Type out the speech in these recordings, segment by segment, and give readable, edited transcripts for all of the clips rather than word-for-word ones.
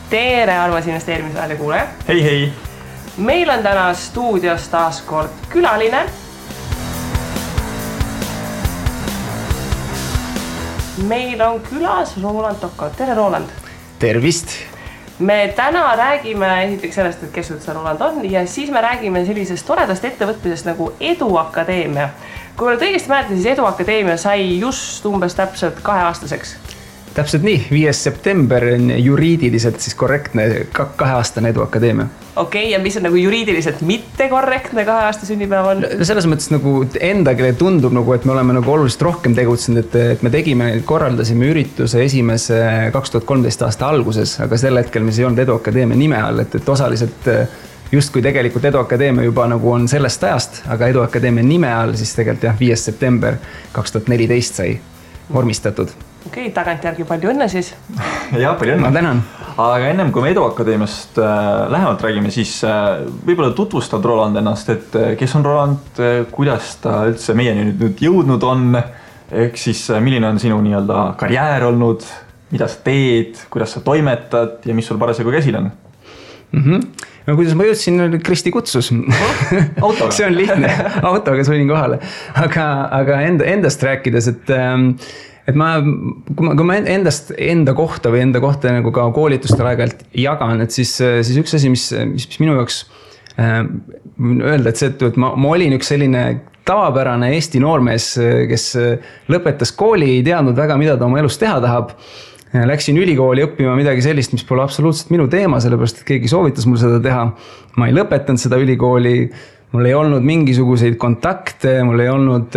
Tere, armas investeerimisväele kuulaja. Hei, hei. Meil on täna stuudios taas kord külaline. Meil on külas Roland Toko. Tere, Roland. Tervist. Me täna räägime esiteks sellest, et kes üldse Roland on ja siis me räägime sellisest toredast ettevõtmisest nagu Eduakadeemia. Kui ma õigesti mäletan, siis Eduakadeemia sai just umbes täpselt 2-aastaseks. Täpselt nii, 5. september on juriidiliselt siis korrektne 2-aastane Eduakadeemia. Okei, ja mis on nagu juriidiliselt mitte korrektne 2-aasta sünnipäev on? Selles mõttes nagu endagile tundub, nagu, et me oleme nagu oluliselt rohkem tegutsenud, et me korraldasime ürituse esimese 2013 aasta alguses, aga sel hetkel mis ei olnud Eduakadeemia nime all, et osaliselt just kui tegelikult Eduakadeemia juba nagu on sellest ajast, aga Eduakadeemia nime all siis tegelikult 5. september 2014 sai vormistatud. Okei, tagantjärgi palju õnne siis. Ja, palju õnne. Ma tänan. Aga ennem kui me Eduakadeemiast lähemalt räägime, siis võib-olla tutvustad Roland ennast, et kes on Roland, kuidas ta üldse meieni nüüd jõudnud on, ehk siis milline on sinu nii-öelda karjäär olnud, mida sa teed, kuidas sa toimetad ja mis sul parasjagu käsil on? No kuidas ma jõudsin, Kristi kutsus. Autoga. See on lihtne, autoga sõin kohale. Aga endast rääkides, et kui ma enda kohta nagu ka koolitustel aeg-ajalt jagan, et siis üks asi, mis minu jaoks öelda, et ma olin üks selline tavapärane Eesti noormees, kes lõpetas kooli, ei teadnud väga, mida ta oma elus teha tahab. Läksin ülikooli õppima midagi sellist, mis pole absoluutselt minu teema, sellepärast, et keegi soovitas mul seda teha. Ma ei lõpetanud seda ülikooli, mul ei olnud mingisuguseid kontakte, mul ei olnud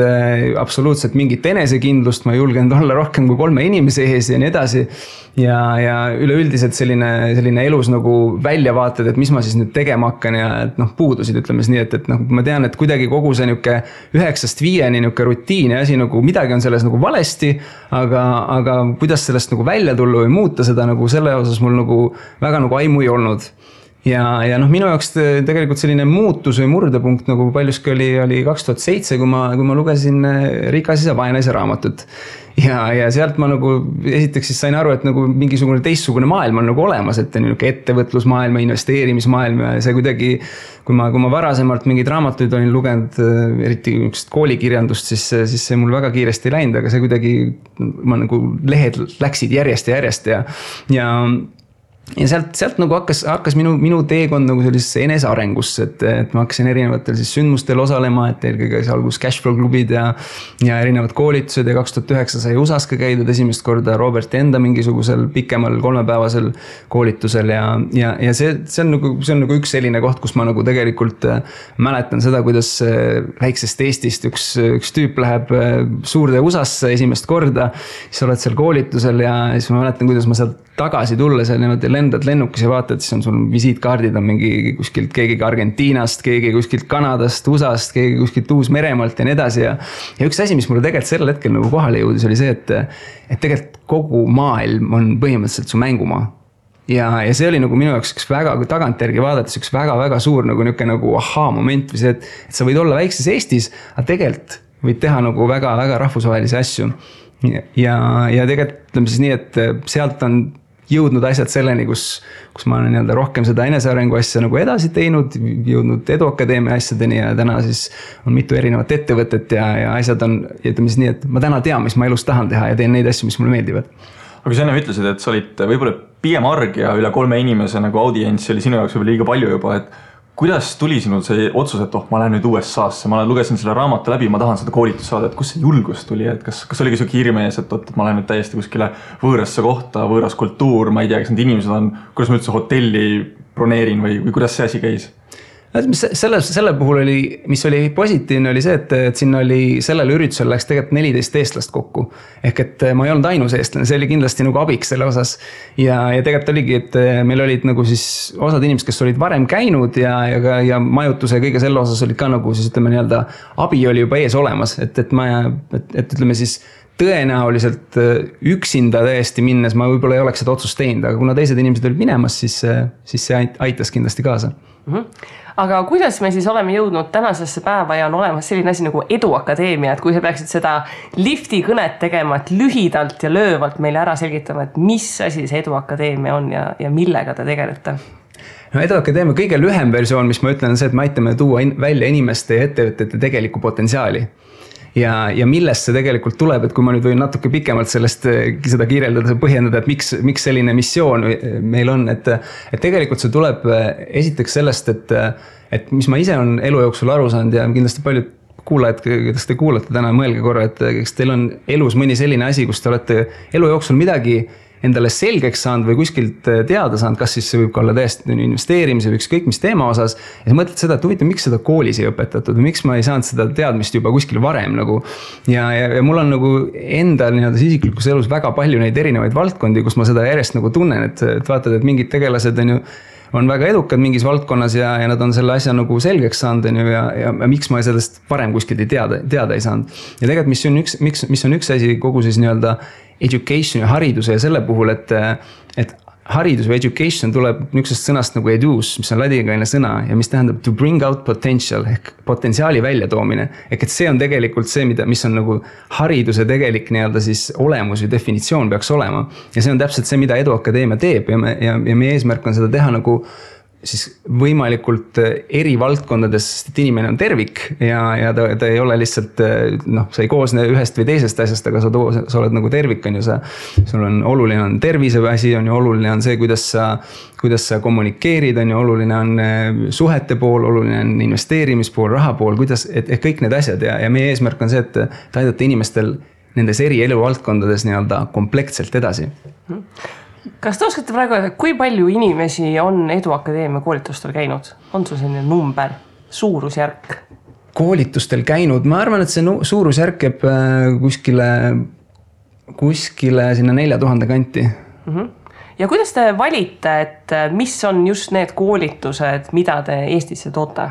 absoluutselt mingit enesekindlust, ma ei julgenud olla rohkem kui 3 inimese ees ja nii edasi. Ja üleüldiselt selline elus nagu väljavaated, et mis ma siis nüüd tegema hakkan ja puudusid, ütleme nii, et ma tean, et kuidagi kogu see 9-5 rutiin ja asi nagu midagi on selles nagu valesti, aga kuidas sellest nagu välja tulla või muuta seda nagu selle osas mul nagu väga nagu aimu ei olnud. Ja minu jaoks tegelikult selline muutus või murdepunkt nagu paljuski oli 2007, kui ma lugesin Rikas isa vaenaisa raamatut. Ja sealt ma nagu esiteks siis sain aru, et nagu mingisugune teistsugune maailm on nagu olemas, et ettevõtlusmaailm ja investeerimismaailm ja see kuidagi, kui ma varasemalt mingid raamatuid olin lugenud, eriti koolikirjandust, siis see mul väga kiiresti ei läinud, aga see kuidagi, nagu lehed läksid järjest ja sealt nagu hakkas minu teekond nagu sellisesse enesearengusse, et ma hakkasin erinevatel siis sündmustel osalema, et eelkõige algus Cashflow klubid ja erinevad koolitused ja 2009 sai USAs ka käidud esimest korda Robert enda mingisugusel pikemal 3-päevasel koolitusel ja see on nagu üks selline koht, kus ma nagu tegelikult mäletan seda, kuidas väiksest Eestist üks tüüp läheb suurde USAsse esimest korda, siis oled seal koolitusel ja siis ma mäletan, kuidas ma sealt tagasi tulla, seal niimoodi lendad lennukis ja vaatad, siis on sul visiitkaardid on mingi kuskilt keegi Argentiinast, keegi kuskilt Kanadast, USAst, keegi kuskilt Uus-Meremaalt ja nii edasi ja üks asi, mis mulle tegelikult sel hetkel nagu kohale jõudis, oli see, et tegelikult kogu maailm on põhimõtteliselt su mängumaa. Ja see oli nagu minu jaoks üks väga tagantjärgi vaadates üks väga suur nagu aha-moment või see, et sa võid olla väikses Eestis, aga tegelikult võid teha nagu väga rahvusvahelisi asju. Ja tegelikult ütleme siis nii, et sealt on jõudnud asjad selleni, kus ma olen nii-öelda rohkem seda enesearengu asja nagu edasi teinud, jõudnud Eduakadeemia asjadeni ja täna siis on mitu erinevat ettevõtet ja asjad on, ütleme siis nii, et ma täna tean, mis ma elus tahan teha ja teen neid asju, mis mulle meeldivad. Aga sa enne ütlesid, et sa olid võib-olla pigem arg ja üle 3 inimese nagu audients oli sinu jaoks võib-olla liiga palju juba, et kuidas tuli sinul see otsus, et ma lähen nüüd USA-sse, ma lugesin selle raamatu läbi, ma tahan seda koolitust saada, et kus see julgus tuli, et kas oligi su hirmees, et ma lähen nüüd täiesti kuskile võõrasse kohta, võõras kultuur, ma ei tea, kas need inimesed on, kuidas ma üldse hotelli broneerin või kuidas see asi käis? Selle puhul oli, mis oli positiivne, oli see, et siin oli sellel üritusel läks tegelikult 14 eestlast kokku. Ehk et ma ei olnud ainus eestlane, see oli kindlasti nagu abiks selle osas. Ja tegelikult oligi, et meil olid nagu siis osad inimesed, kes olid varem käinud ja majutuse ja kõige selle osas olid ka nagu siis ütleme nii-öelda abi oli juba ees olemas. Et ütleme siis tõenäoliselt üksinda täiesti minnes ma võib-olla ei oleks seda otsust teinud, aga kuna teised inimesed olid minemas, siis see aitas kindlasti kaasa. Aga kuidas me siis oleme jõudnud tänasesse päeva ja on olemas selline asi nagu Eduakadeemia, et kui sa peaksid seda lifti kõnet tegema, et lühidalt ja löövalt meile ära selgitama, et mis asi see Eduakadeemia on ja millega te tegelete? No Eduakadeemia kõige lühem versioon, mis ma ütlen, on see, et me aitame tuua välja inimeste ja ettevõtete tegeliku potentsiaali. Ja millest see tegelikult tuleb, et kui ma nüüd võin natuke pikemalt seda kirjeldada, põhjendada, et miks selline missioon meil on, et tegelikult see tuleb esiteks sellest, et mis ma ise on elu jooksul aru saanud ja kindlasti paljud kuulajad, kes te kuulate täna, mõelge korra, et kas teil on elus mõni selline asi, kus te olete elu jooksul midagi endale selgeks saanud või kuskilt teada saanud, kas siis see võib olla täiesti investeerimise või ükskõik mis teema osas. Ja sa mõtled seda, et huvitav, miks seda koolis ei õpetatud või miks ma ei saanud seda teadmist juba kuskil varem nagu. Ja mul on nagu enda isiklikus elus väga palju neid erinevaid valdkondi, kus ma seda järjest nagu tunnen, et vaatad, et mingid tegelased on väga edukad mingis valdkonnas ja nad on selle asja nagu selgeks saanud ja miks ma sellest varem kuskilt teada ei saanud. Ja tegelikult mis on üks asi kogu siis education ja hariduse ja selle puhul, et haridus või education tuleb niisugusest sõnast nagu edus, mis on ladinakaelne sõna ja mis tähendab to bring out potential ehk potentsiaali väljatoomine. Ehk et see on tegelikult see, mis on nagu hariduse tegelik siis olemus ja definitsioon peaks olema. Ja see on täpselt see, mida Eduakadeemia teeb ja meie eesmärk on seda teha nagu siis võimalikult eri valdkondades, sest inimene on tervik ja ta ei ole lihtsalt, sa ei koosne ühest või teisest asjast, aga sa oled nagu tervik, sul on oluline on tervise asi, on ju oluline on see, kuidas sa kommunikeerid, on ju oluline on suhete pool, oluline on investeerimispool, raha pool, et kõik need asjad ja meie eesmärk on see, et aidata inimestel nendes eri eluvaldkondades komplektselt edasi. Kas te oskate praegu, kui palju inimesi on Eduakadeemia koolitustel käinud? On sul selline number, suurusjärk? Koolitustel käinud, ma arvan, et see suurusjärk jääb kuskile sinna 4000 kanti. Ja kuidas te valite, et mis on just need koolitused, mida te Eestisse toote?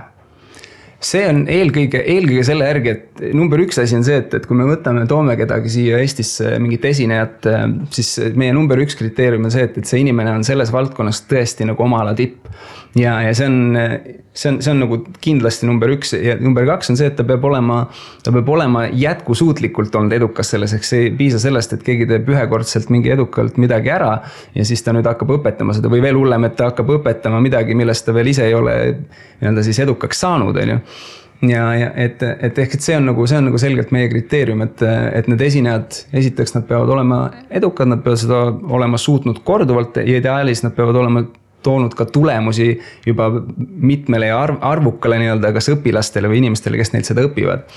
See on eelkõige selle järgi, et number üks asi on see, et kui me toome kedagi siia Eestisse mingit esinejat, siis meie number üks kriteerium on see, et see inimene on selles valdkonnas tõesti nagu oma ala tipp. Ja see on nagu kindlasti number üks ja number kaks on see, et ta peab olema jätkusuutlikult olnud edukas selles, eks see ei piisa sellest, et keegi teeb ühekordselt mingi edukalt midagi ära ja siis ta nüüd hakkab õpetama seda või veel hullem, et ta hakkab õpetama midagi, millest ta veel ise ei ole siis edukaks saanud, on ju. Ja ehk see on nagu selgelt meie kriteerium, et need esinejad, esiteks nad peavad olema edukad, nad peavad seda olema suutnud korduvalt ja ideaalis nad peavad olema toonud ka tulemusi juba mitmele ja arvukale kas õpilastele või inimestele, kes neilt seda õpivad.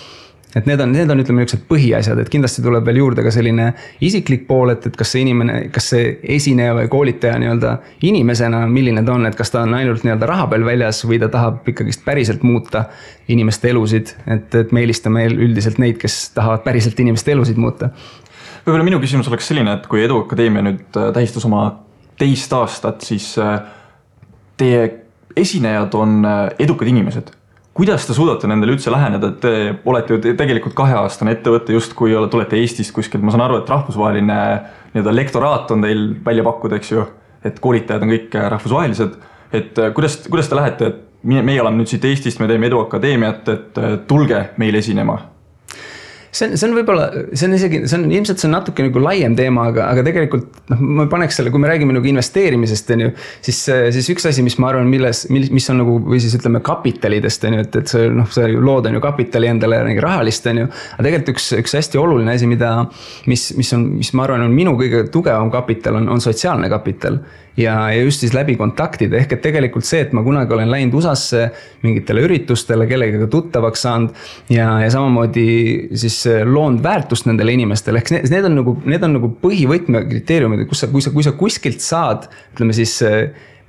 Et need on ütleme niisugused põhiasjad, et kindlasti tuleb veel juurde ka selline isiklik pool, et kas see esineja või koolitaja inimesena, milline ta on, et kas ta on ainult raha peal väljas või ta tahab ikkagi päriselt muuta inimeste elusid, et me eelistame üldiselt neid, kes tahavad päriselt inimeste elusid muuta. Võib-olla minu küsimus oleks selline, et kui Eduakadeemia nüüd tähistas oma 2 aastat, siis teie esinejad on edukad inimesed. Kuidas te suudate nendele üldse läheneda, et te olete ju tegelikult 2-aastane ettevõtte just kui tulete Eestist kuskilt, ma saan aru, et rahvusvaheline lektoraat on teil välja pakkuda, eks ju, et koolitajad on kõik rahvusvahelised, et kuidas te lähete, et meie oleme nüüd siit Eestist, me teeme Eduakadeemiat, et tulge meil esinema? See on võib-olla, ilmselt see on natuke nagu laiem teema, aga tegelikult ma paneks selle, kui me räägime nagu investeerimisest, siis üks asi, mis ma arvan, mis on nagu, või siis ütleme kapitalidest, et see lood on ju kapitali endale rahalist, aga tegelikult üks hästi oluline asi, mis ma arvan on minu kõige tugevam kapital, on sotsiaalne kapital. Ja just siis läbi kontaktide, ehk et tegelikult see, et ma kunagi olen läinud USA-sse mingitele üritustele, kellegagi tuttavaks saanud ja samamoodi siis loonud väärtust nendele inimestele, ehk need on nagu põhivõtme kriteeriumid, kui sa kuskilt saad, ütleme siis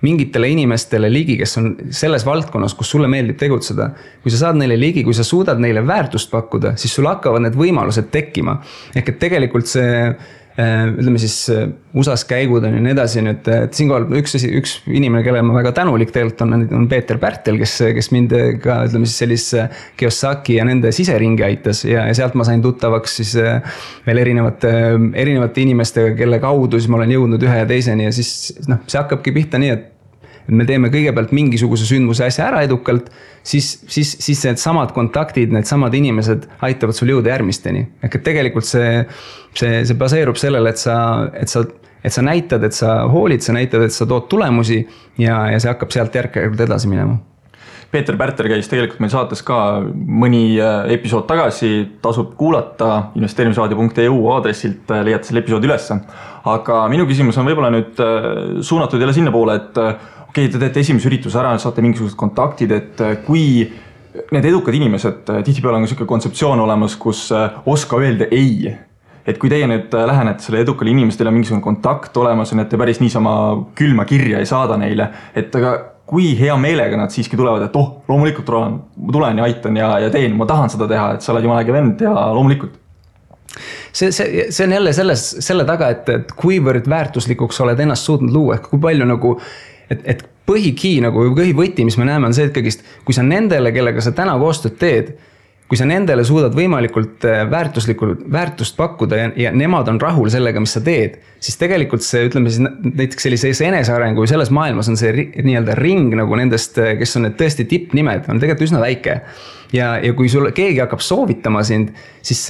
mingitele inimestele ligi, kes on selles valdkonnas, kus sulle meeldib tegutseda. Kui sa saad neile ligi, kui sa suudad neile väärtust pakkuda, siis sul hakkavad need võimalused tekkima. Ehk et tegelikult see ütleme siis USA-s käigud on ja nii edasi nüüd, et siinkohal üks inimene, kelle ma väga tänulik tegelikult on Peeter Pärtel, kes mind ka ütleme siis sellise Kiyosaki ja nende siseringi aitas ja sealt ma sain tuttavaks siis veel erinevate inimestega, kelle kaudu siis ma olen jõudnud ühe ja teiseni ja siis see hakkabki pihta nii, et me teeme kõigepealt mingisuguse sündmuse asja ära edukalt, siis need samad kontaktid, need samad inimesed aitavad sul jõuda järgmisteni. Ehk et tegelikult see baseerub sellele, et sa näitad, et sa hoolid, sa näitad, et sa tood tulemusi ja see hakkab sealt järk-järgult edasi minema. Peeter Pärter käis tegelikult meil saates ka mõni episood tagasi, tasub kuulata investeerimisraadio.eu aadressilt, leiate selle episoodi ülesse. Aga minu küsimus on võib-olla nüüd suunatud jälle sinna poole, et okei, te teete esimese ürituse ära, saate mingisugused kontaktid, et kui need edukad inimesed, tihtipeale on selline kontseptsioon olemas, kus oska öelda ei. Et kui teie nüüd lähenete selle edukale inimestele mingisugune kontakt olemas, on, et te päris niisama külma kirja ei saada neile, et aga kui hea meelega nad siiski tulevad, et loomulikult ma tulen ja aitan ja teen, ma tahan seda teha, et sa oled jumala äge vend ja loomulikult. See on jälle selle taga, et kuivõrd väärtuslikuks oled ennast suutnud luua, kui palju nagu, et põhikii nagu põhivõti, mis me näeme, on see, et kõigist, kui sa nendele, kellega sa täna koostööd teed, kui sa nendele suudad võimalikult väärtust pakkuda ja nemad on rahul sellega, mis sa teed, siis tegelikult see, ütleme siis näiteks sellises enesearengu või selles maailmas on see nii-öelda ring nagu nendest, kes on need tõesti tippnimed, on tegelikult üsna väike. Ja kui sul keegi hakkab soovitama sind, siis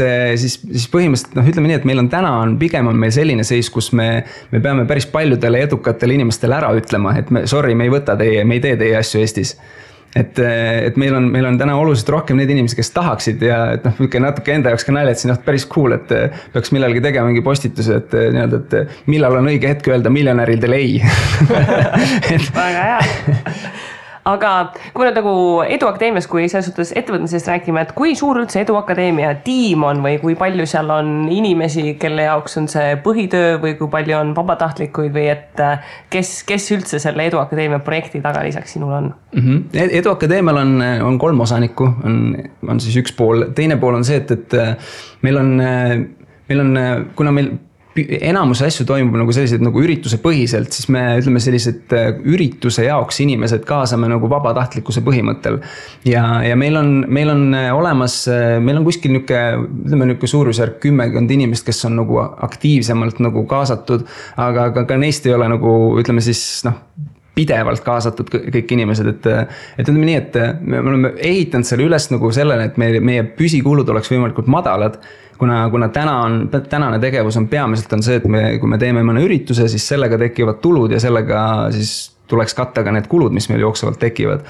põhimõtteliselt, ütleme nii, et meil on täna pigem on meil selline seis, kus me peame päris paljudele edukatele inimestele ära ütlema, et me ei võta teie, me ei tee teie asju Eestis. Et meil on täna oluliselt rohkem need inimesed, kes tahaksid ja natuke enda jaoks ka nalja, et siin päris cool, et peaks millalgi tegema mingi postituse, et millal on õige hetk öelda miljonäridele ei. Väga hea. Aga kui me nagu Eduakadeemias, kui selles suhtes ettevõtmisest räägime, et kui suur üldse Eduakadeemia tiim on või kui palju seal on inimesi, kelle jaoks on see põhitöö või kui palju on vabatahtlikuid või et kes üldse selle Eduakadeemia projekti taga lisaks sinul on? Eduakadeemial on 3 osanikku, on siis üks pool. Teine pool on see, et meil on, kuna meil enamus asju toimub nagu sellised nagu ürituse põhiselt, siis me ütleme sellised ürituse jaoks inimesed kaasame nagu vabatahtlikkuse põhimõttel. Ja meil on olemas, meil on kuskil niuke suurusjärk 10 inimest, kes on nagu aktiivsemalt nagu kaasatud, aga ka neist ei ole nagu, ütleme siis, pidevalt kaasatud kõik inimesed, et ütleme nii, et me oleme ehitanud selle üles nagu sellele, et meie püsikulud oleks võimalikult madalad, kuna tänane tegevus on peamiselt on see, et kui me teeme mõne ürituse, siis sellega tekivad tulud ja sellega siis tuleks katta ka need kulud, mis meil jooksvalt tekivad.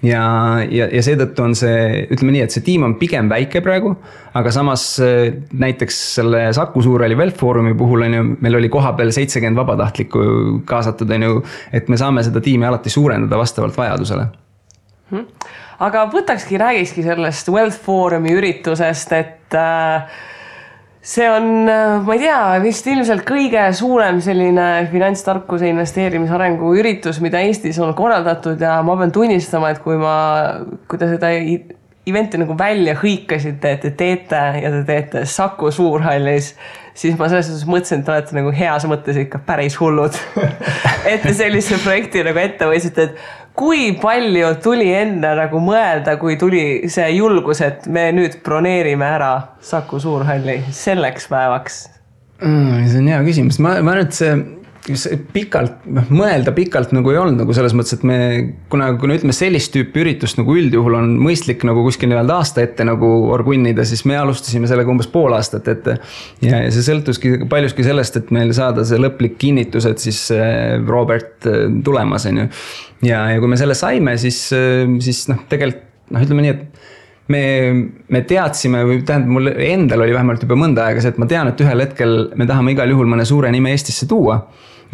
Ja seetõttu on see, ütleme nii, et see tiim on pigem väike praegu, aga samas näiteks selle Saku Suurhalli Wealth Forumi puhul meil oli koha peal 70 vabatahtlikku kaasatud, et me saame seda tiimi alati suurendada vastavalt vajadusele. Aga räägikski sellest Wealth Forumi üritusest, et see on, ma ei tea, vist ilmselt kõige suurem selline finantstarkuse investeerimisarengu üritus, mida Eestis on korraldatud ja ma pean tunnistama, et kui te seda eventi nagu välja hõikasite, et te teete ja te teete Saku Suurhallis, siis ma selles suhtes mõtlesin, et olete nagu heas mõttes ikka päris hullud. Et te sellise projekti nagu ette võisite, et kui palju tuli enne nagu mõelda, kui tuli see julgus, et me nüüd broneerime ära Saku Suurhalli selleks päevaks? See on hea küsimus. Ma nüüd see mõelda pikalt nagu ei olnud nagu selles mõttes, et kuna ütleme sellist tüüpi üritust nagu üldjuhul on mõistlik nagu kuskil aasta ette nagu orgunnida, siis me alustasime sellega umbes pool aastat ette. Ja see sõltuski paljuski sellest, et meil saada see lõplik kinnitus, et siis Robert tulemas on ju. Ja kui me selle saime, siis tegelikult ütleme nii, et me teadsime, või tähendab mul endal oli vähemalt juba mõnda aega see, et ma tean, et ühel hetkel me tahame igal juhul mõne suure nime Eestisse tuua.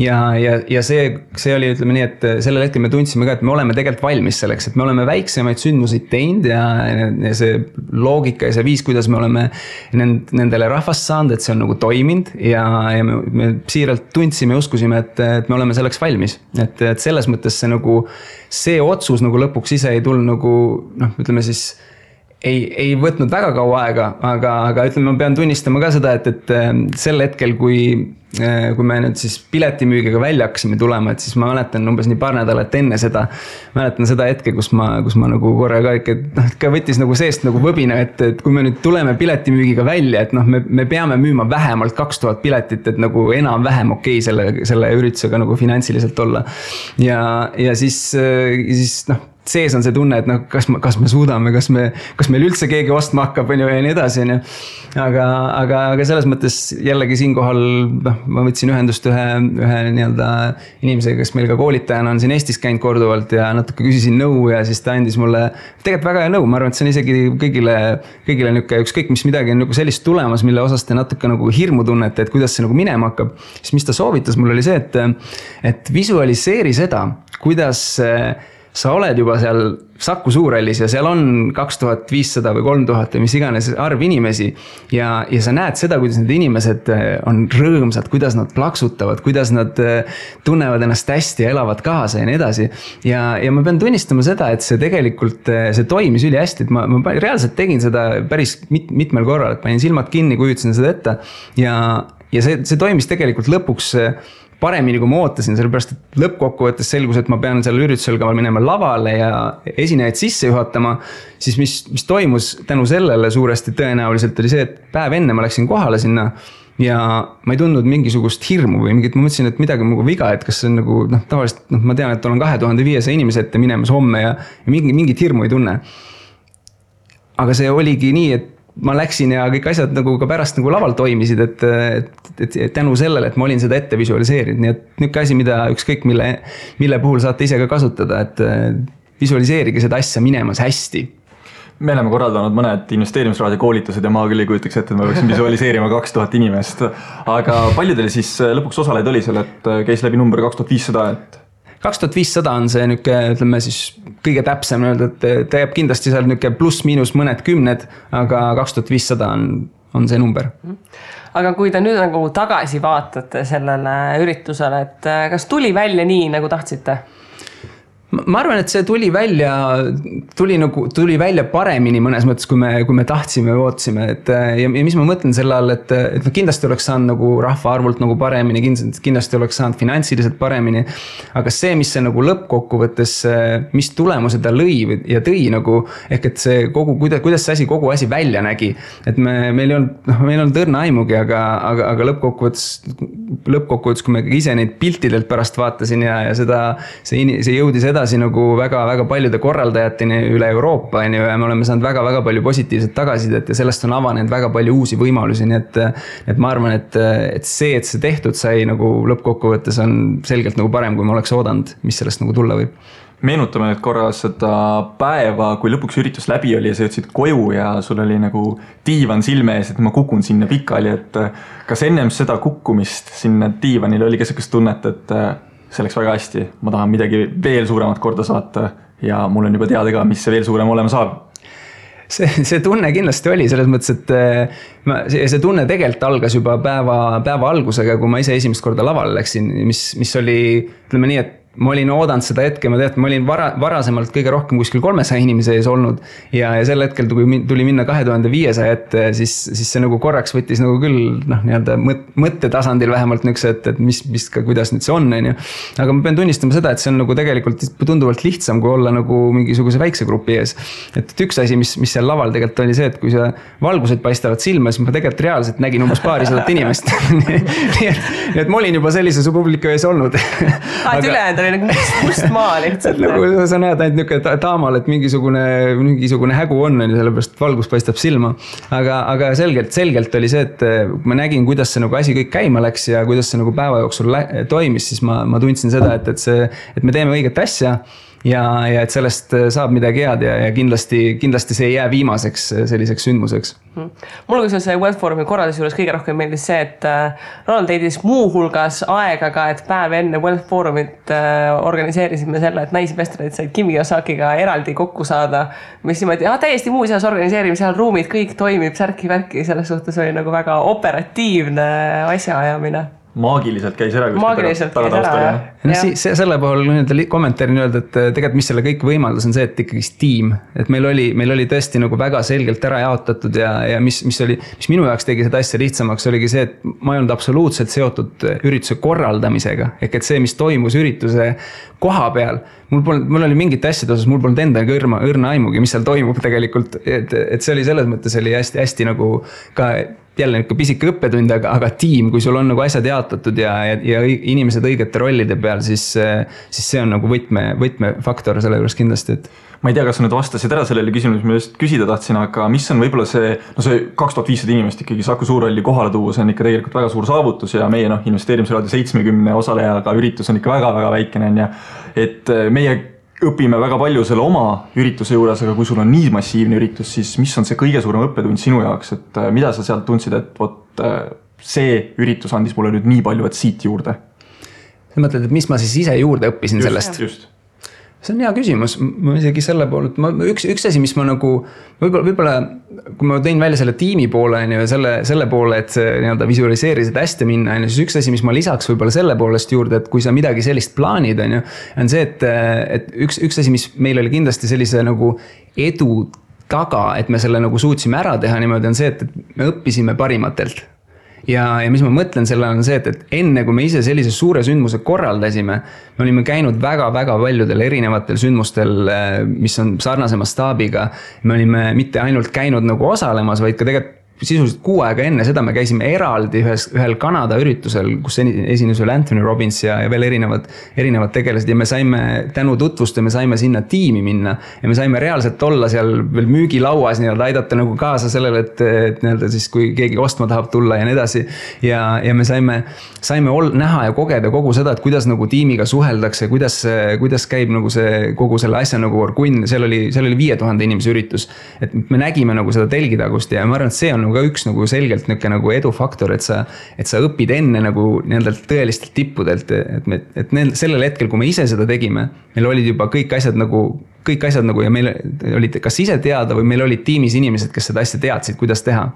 Ja see oli, ütleme nii, et sellel hetkel me tundsime ka, et me oleme tegelikult valmis selleks, et me oleme väiksemaid sündmuseid teinud ja see loogika ja see viis, kuidas me oleme nendele rahvast saanud, et see on nagu toiminud ja me siiralt tundsime ja uskusime, et me oleme selleks valmis. Et selles mõttes see otsus nagu lõpuks ise ei tulnud nagu, ütleme siis ei võtnud väga kaua aega, aga ütleme, ma pean tunnistama ka seda, et sel hetkel, kui me nüüd siis piletimüügiga välja hakkasime tulema, et siis ma mäletan umbes nii paar nädalat enne seda, mäletan seda hetke, kus ma nagu korra ka võttis nagu seest nagu võbina, et kui me nüüd tuleme piletimüügiga välja, et me peame müüma vähemalt 2000 piletit, et nagu enam-vähem okei selle üritusega nagu finantsiliselt olla. Ja siis sees on see tunne, et kas me suudame, kas meil üldse keegi ostma hakkab ja nii edasi. Aga selles mõttes jällegi siinkohal ma võtsin ühendust ühe nii-öelda inimesega, kes meil ka koolitajana on siin Eestis käinud korduvalt ja natuke küsisin nõu ja siis ta andis mulle tegelikult väga hea nõu. Ma arvan, et see on isegi kõigile ükskõik mis midagi on nagu sellist tulemas, mille osas te natuke nagu hirmu tunnete, et kuidas see nagu minema hakkab. Siis mis ta soovitas mul oli see, et visualiseeri seda, kuidas sa oled juba seal Saku Suurhallis ja seal on 2500 või 3000 või mis iganes arv inimesi ja sa näed seda, kuidas need inimesed on rõõmsad, kuidas nad plaksutavad, kuidas nad tunnevad ennast hästi ja elavad kaasa ja nii edasi. Ja ma pean tunnistama seda, et see tegelikult, see toimis üli hästi, et ma reaalselt tegin seda päris mitmel korral, et panin silmad kinni, kujutasin seda ette ja see toimis tegelikult lõpuks paremini, kui ma ootasin, sellepärast, et lõppkokkuvõttes selgus, et ma pean seal üritusel ka minema lavale ja esinejaid sisse juhatama, siis mis toimus tänu sellele suuresti tõenäoliselt oli see, et päev enne ma läksin kohale sinna ja ma ei tundnud mingisugust hirmu või mingit, ma mõtlesin, et midagi on nagu viga, et kas see on nagu, tavaliselt, ma tean, et olen 2500 inimese ette minemas homme ja mingit hirmu ei tunne. Aga see oligi nii, et ma läksin ja kõik asjad nagu ka pärast nagu laval toimisid, et tänu sellele, et ma olin seda ette visualiseerinud. Nii et niuke asi, mida ükskõik mille puhul saate ise ka kasutada, et visualiseerige seda asja minemas hästi. Me oleme korraldanud mõned investeerimisraadio koolitused ja ma küll ei kujutaks ette, et ma võiksin visualiseerima 2000 inimest. Aga paljudel siis lõpuks osaleid oli seal, et käis läbi number 2500, et 2500 on see niuke, ütleme siis kõige täpsem öelda, et ta jääb kindlasti seal niuke pluss miinus mõned kümned, aga 2500 on see number. Aga kui te nüüd nagu tagasi vaatate sellele üritusele, et kas tuli välja nii, nagu tahtsite? Ma arvan, et see tuli välja paremini mõnes mõttes, kui me tahtsime või ootasime. Ja mis ma mõtlen selle all, et kindlasti oleks saanud nagu rahva arvult nagu paremini, kindlasti oleks saanud finantsiliselt paremini. Aga see, mis see nagu lõppkokkuvõttes, mis tulemuse ta lõi ja tõi nagu, ehk et see kuidas see asi, kogu asi välja nägi. Et meil ei olnud õrna aimugi, aga lõppkokkuvõttes, kui me ise neid piltidelt pärast vaatasin ja see jõudis edasi nagu väga-väga paljude korraldajateni üle Euroopa ja me oleme saanud väga-väga palju positiivset tagasisidet ja sellest on avanenud väga palju uusi võimalusi, nii et ma arvan, et see tehtud sai nagu lõppkokkuvõttes on selgelt nagu parem, kui ma oleks oodanud, mis sellest nagu tulla võib. Meenutame nüüd korra seda päeva, kui lõpuks üritus läbi oli ja sa jõudsid koju ja sul oli nagu diivan silme ees, et ma kukun sinna pikali, et kas ennem seda kukkumist sinna diivanile oli keskkõs tunnet, et see läks väga hästi, ma tahan midagi veel suuremat korda saata ja mul on juba teada ka, mis see veel suurem olema saab. See tunne kindlasti oli selles mõttes, et see tunne tegelikult algas juba päeva algusega, kui ma ise esimest korda lavale läksin, mis oli, ütleme nii, et ma olin oodanud seda hetke, ma olin varasemalt kõige rohkem kuskil 300 inimese ees olnud ja sel hetkel tuli minna 2500 ette, siis see nagu korraks võttis nagu küll nii-öelda mõttetasandil vähemalt nüks, et kuidas nüüd see on. Aga ma pean tunnistama seda, et see on nagu tegelikult tunduvalt lihtsam, kui olla nagu mingisuguse väikse grupi ees. Et üks asi, mis seal laval tegelikult oli see, et kui see valgused paistavad silma, siis ma tegelikult reaalselt nägin umbes paarisadat inimest. Nii et ma olin juba sellise publiku ees olnud. oli nagu must maa lihtsalt. Nagu sa näed ainult niisugune taamal, et mingisugune hägu on, sellepärast valgus paistab silma. Aga selgelt oli see, et ma nägin, kuidas see nagu asi kõik käima läks ja kuidas see nagu päeva jooksul toimis, siis ma tundsin seda, et me teeme õiget asja ja et sellest saab midagi head ja kindlasti see ei jää viimaseks selliseks sündmuseks. Mulle kui see Wealth Forumi korraldus juures kõige rohkem meeldis see, et Ronald teidis muu hulgas aega ka, et päev enne Wealth Forumit organiseerisime selle, et naisinvestorid said Kimi Osakiga eraldi kokku saada, mis niimoodi, täiesti muuseas organiseerime, seal ruumid kõik toimib, särki-värki, selles suhtes oli nagu väga operatiivne asjaajamine. maagiliselt käis ära. Maagiliselt käis ära, jah. No, selle puhul kommentaari öelda, et tegelikult mis selle kõik võimaldas on see, et ikkagi tiim. Et meil oli tõesti nagu väga selgelt ära jaotatud ja mis minu jaoks tegi seda asja lihtsamaks, oligi see, et ma ei olnud absoluutselt seotud ürituse korraldamisega. Ehk et see, mis toimus ürituse koha peal, mul oli mingit asjade osas, mul polnud endaga õrna aimugi, mis seal toimub tegelikult. Et see oli selles mõttes oli hästi nagu ka jälle ikka pisike õppetund, aga tiim, kui sul on nagu asjad jaotatud ja inimesed õigete rollide peal, siis see on nagu võtmefaktor selle juures kindlasti, et ma ei tea, kas sa nüüd vastasid ära sellele küsimus, ma just küsida tahtsin, aga mis on võib-olla see 2500 inimest ikkagi Saku Suurhalli kohale tuua, see on ikka tegelikult väga suur saavutus ja meie investeerimisraadio 70 osalejaga üritus on ikka väga-väga väikene ja et meie õpime väga palju selle oma ürituse juures, aga kui sul on nii massiivne üritus, siis mis on see kõige suurem õppetund sinu jaoks, et mida sa sealt tundsid, et see üritus andis mulle nüüd nii palju, et siit juurde? Sa mõtled, et mis ma siis ise juurde õppisin sellest? Just. See on hea küsimus, ma isegi selle poole, üks asi, mis ma nagu, võib-olla kui ma tõin välja selle tiimi poole ja selle poole, et see visualiseerisid hästi minna, siis üks asi, mis ma lisaks võib-olla selle poolest juurde, et kui sa midagi sellist plaanid, on see, et üks asi, mis meil oli kindlasti sellise nagu edu taga, et me selle nagu suutsime ära teha niimoodi, on see, et me õppisime parimatelt. Ja mis ma mõtlen selle on see, et enne kui me ise sellise suure sündmuse korraldasime, me olime käinud väga-väga paljudel erinevatel sündmustel, mis on sarnasema staabiga. Me olime mitte ainult käinud nagu osalemas, vaid ka tegelikult sisuliselt 6 aega enne seda me käisime eraldi ühel Kanada üritusel, kus esines veel Anthony Robbins ja veel erinevad tegelased ja me saime tänu tutvuste, me saime sinna tiimi minna ja me saime reaalselt olla seal veel müügilauas aidata nagu kaasa sellele, et siis kui keegi ostma tahab tulla ja nii edasi ja me saime näha ja kogeda kogu seda, et kuidas nagu tiimiga suheldakse, kuidas käib nagu see kogu selle asja nagu orgunn, seal oli 5000 inimese üritus, et me nägime nagu seda telgitagust ja ma arvan, et see on ka üks nagu selgelt nagu edufaktor, et sa õpid enne nagu tõelistelt tippudelt, et sellel hetkel, kui me ise seda tegime, meil olid juba kõik asjad nagu ja meil olid kas ise teada või meil olid tiimis inimesed, kes seda asja teadsid, kuidas teha.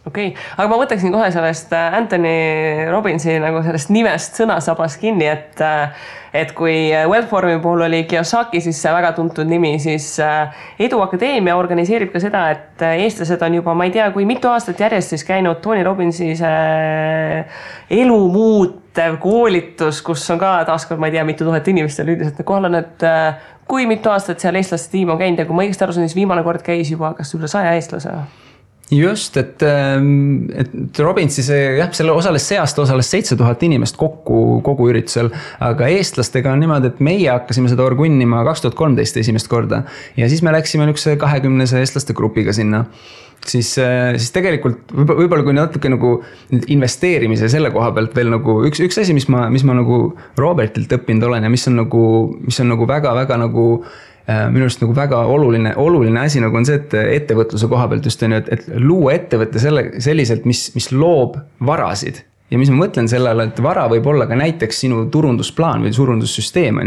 Okei, aga ma võtaksin kohe sellest Anthony Robbinsi nagu sellest nimest sõnasabas kinni, et kui Wellforumi puhul oli Kiyosaki, siis see väga tuntud nimi, siis Edu Akadeemia organiseerib ka seda, et eestlased on juba, ma ei tea, kui mitu aastat järjest siis käinud Tony Robbinsi elu muutev koolitus, kus on ka taaskord, ma ei tea, mitu tuhat inimestel üldiselt kohal on, et kui mitu aastat seal eestlaste tiim on käinud ja kui ma õigesti aru saan, siis viimane kord käis juba kas üle 100 eestlase. Just, et Robbinsi selle see aasta osales 7000 inimest kogu üritusel, aga eestlastega on niimoodi, et meie hakkasime seda orgunnima 2013 esimest korda ja siis me läksime üks 20 eestlaste grupiga sinna. Siis tegelikult võib-olla kui natuke nagu investeerimise selle koha pealt veel nagu üks asi, mis ma nagu Robertilt õppinud olen ja mis on nagu väga-väga nagu minu arust nagu väga oluline asi nagu on see, et ettevõtluse koha pealt just on, et luua ettevõtte selliselt, mis loob varasid. Ja mis ma mõtlen sellele, et vara võib olla ka näiteks sinu turundusplaan või turundussüsteem.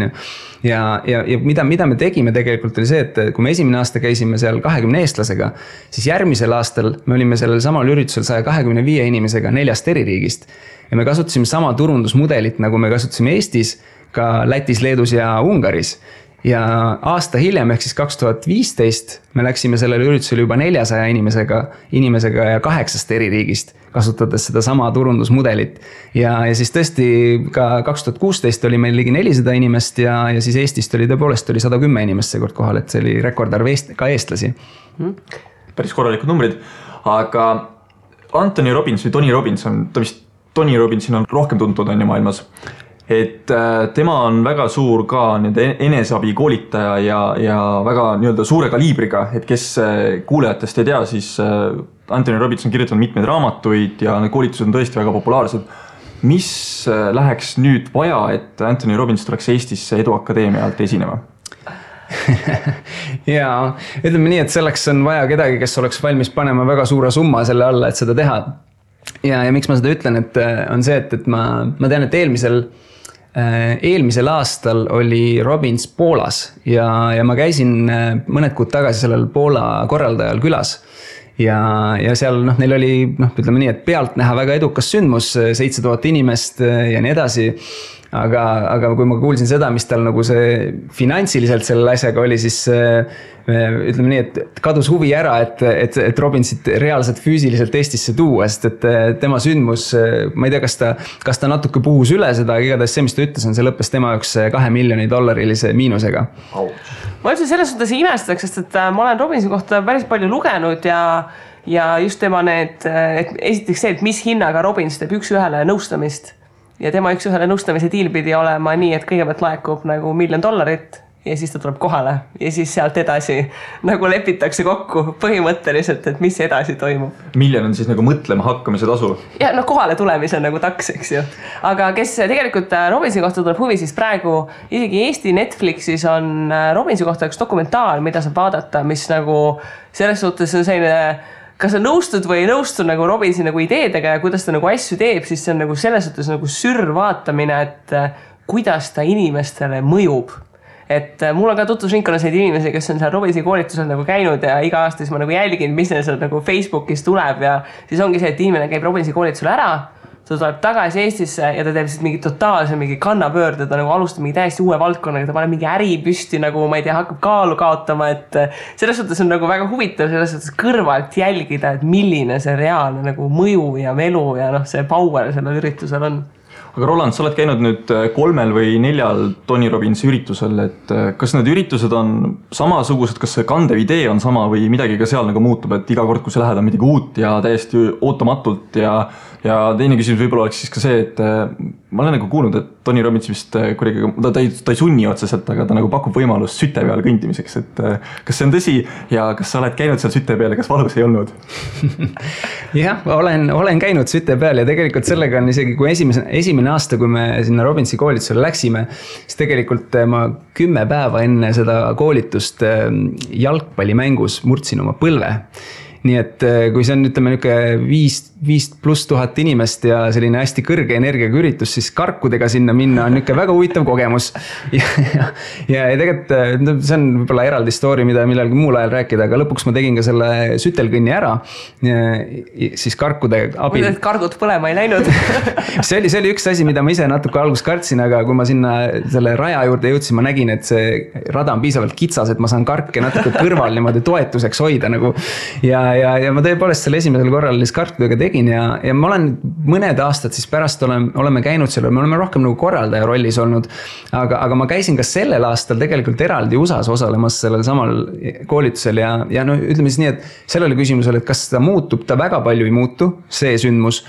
Ja mida me tegime tegelikult oli see, et kui me esimene aasta käisime seal 20 eestlasega, siis järgmisel aastal me olime sellel samal üritusel 125 inimesega 4 eri riigist. Ja me kasutasime sama turundusmudelit, nagu me kasutasime Eestis, ka Lätis, Leedus ja Ungaris. Ja aasta hiljem, ehk siis 2015, me läksime sellele üritusele juba 400 inimesega ja 8 eri riigist, kasutades seda sama turundusmudelit. Ja siis tõesti ka 2016 oli meil ligi 400 inimest ja siis Eestist oli tõepoolest 110 inimest seekord kohal, et see oli rekordarv ka eestlasi. Päris korralikud numbrid, aga Anthony Robbins või Tony Robbins Tony Robbinsin on rohkem tuntud on ju maailmas. Et tema on väga suur ka eneseabi koolitaja ja väga suure kaliibriga, et kes kuulajatest ei tea, siis Anthony Robbins on kirjutanud mitmeid raamatuid ja need koolitused on tõesti väga populaarsed. Mis läheks nüüd vaja, et Anthony Robbins tuleks Eestisse Edu Akadeemia alt esinema? Ja ütleme nii, et selleks on vaja kedagi, kes oleks valmis panema väga suure summa selle alla, et seda teha. Ja miks ma seda ütlen, et on see, et ma tean, et eelmisel aastal oli Robbins Poolas ja ma käisin mõned kuud tagasi sellel Poola korraldajal külas ja seal neil oli ütleme nii, et pealt näha väga edukas sündmus, 7000 inimest ja nii edasi. Aga kui ma kuulsin seda, mis tal nagu see finantsiliselt selle asjaga oli, siis ütleme nii, et kadus huvi ära, et Robinsit reaalselt füüsiliselt Eestisse tuua, sest et tema sündmus, ma ei tea, kas ta natuke puhus üle seda, aga igatahes see, mis ta ütles, see lõppes tema jaoks $2 miljonit miinusega. Ma üldse selles suhtes imestaks, sest et ma olen Robinsi kohta päris palju lugenud ja just tema et esiteks see, et mis hinnaga Robins teeb üks-ühele nõustamist. Ja tema üks-ühele nõustamise diil pidi olema nii, et kõigepealt laekub nagu $1 miljon ja siis ta tuleb kohale ja siis sealt edasi nagu lepitakse kokku põhimõtteliselt, et mis edasi toimub. $1 miljon on siis nagu mõtlema hakkamise tasu? Ja kohale tulemise nagu taks, eks ju. Aga kes tegelikult Robinsi kohta tuleb huvi, siis praegu isegi Eesti Netflixis on Robinsi kohta üks dokumentaar, mida saab vaadata, mis nagu selles suhtes on selline kas sa nõustud või ei nõustu nagu Robinsi nagu ideedega ja kuidas ta nagu asju teeb, siis see on nagu selles suhtes nagu sürvaatamine, et kuidas ta inimestele mõjub. Et mul on ka tutvusringkonnas neid inimesi, kes on seal Robinsi koolitusel nagu käinud ja iga aasta siis ma nagu jälgin, mis neil seal nagu Facebookis tuleb ja siis ongi see, et inimene käib Robinsi koolitusel ära, ta tuleb tagasi Eestisse ja ta teeb siis mingi totaalse mingi kannapöörde, ta nagu alustab mingi täiesti uue valdkonnaga, ta paneb mingi äri püsti nagu, ma ei tea, hakkab kaalu kaotama, et selles suhtes on nagu väga huvitav selles suhtes kõrvalt jälgida, et milline see reaalne nagu mõju ja melu ja see power sellel üritusel on. Aga Roland, sa oled käinud nüüd 3 või 4 Tony Robbinsi üritusel, et kas need üritused on samasugused, kas see kandev idee on sama või midagi ka seal nagu muutub, et iga kord, kui sa lähed on midagi uut ja täiesti ootamatult ja teine küsimus võib-olla oleks siis ka see, et ma olen nagu kuulnud, et Tony Robbins vist kuidagi, ta ei sunni otseselt, aga ta nagu pakub võimalust süte peal kõndimiseks, et kas see on tõsi ja kas sa oled käinud seal süte peal ja kas valus ei olnud? Jah, olen käinud süte peal ja tegelikult sellega on isegi, kui esimene aasta, kui me sinna Robbinsi koolitusele läksime, siis tegelikult ma 10 päeva enne seda koolitust jalgpallimängus murdsin oma põlve. Nii et kui see on, ütleme, 5,000+ inimest ja selline hästi kõrge energiaga üritus, siis karkudega sinna minna on väga huvitav kogemus. Ja tegelikult see on võib-olla eraldi story, mida millalgi muul ajal rääkida, aga lõpuks ma tegin ka selle sütelkõnni ära, siis karkude abil. Mõtled, et kargud põlema ei läinud? See oli üks asi, mida ma ise natuke alguses kartsin, aga kui ma sinna selle raja juurde jõudsin, ma nägin, et see rada on piisavalt kitsas, et ma saan karke natuke kõrval niimoodi toetuseks hoida nagu. Ja ma tõepoolest selle esimesel korral karkudega tegin ja ma olen mõned aastad siis pärast oleme käinud seal, me oleme rohkem nagu korraldaja rollis olnud, aga ma käisin ka sellel aastal tegelikult eraldi USAs osalemas sellel samal koolitusel ja ütleme siis nii, et sellele küsimusele, et kas ta muutub, ta väga palju ei muutu, see sündmus.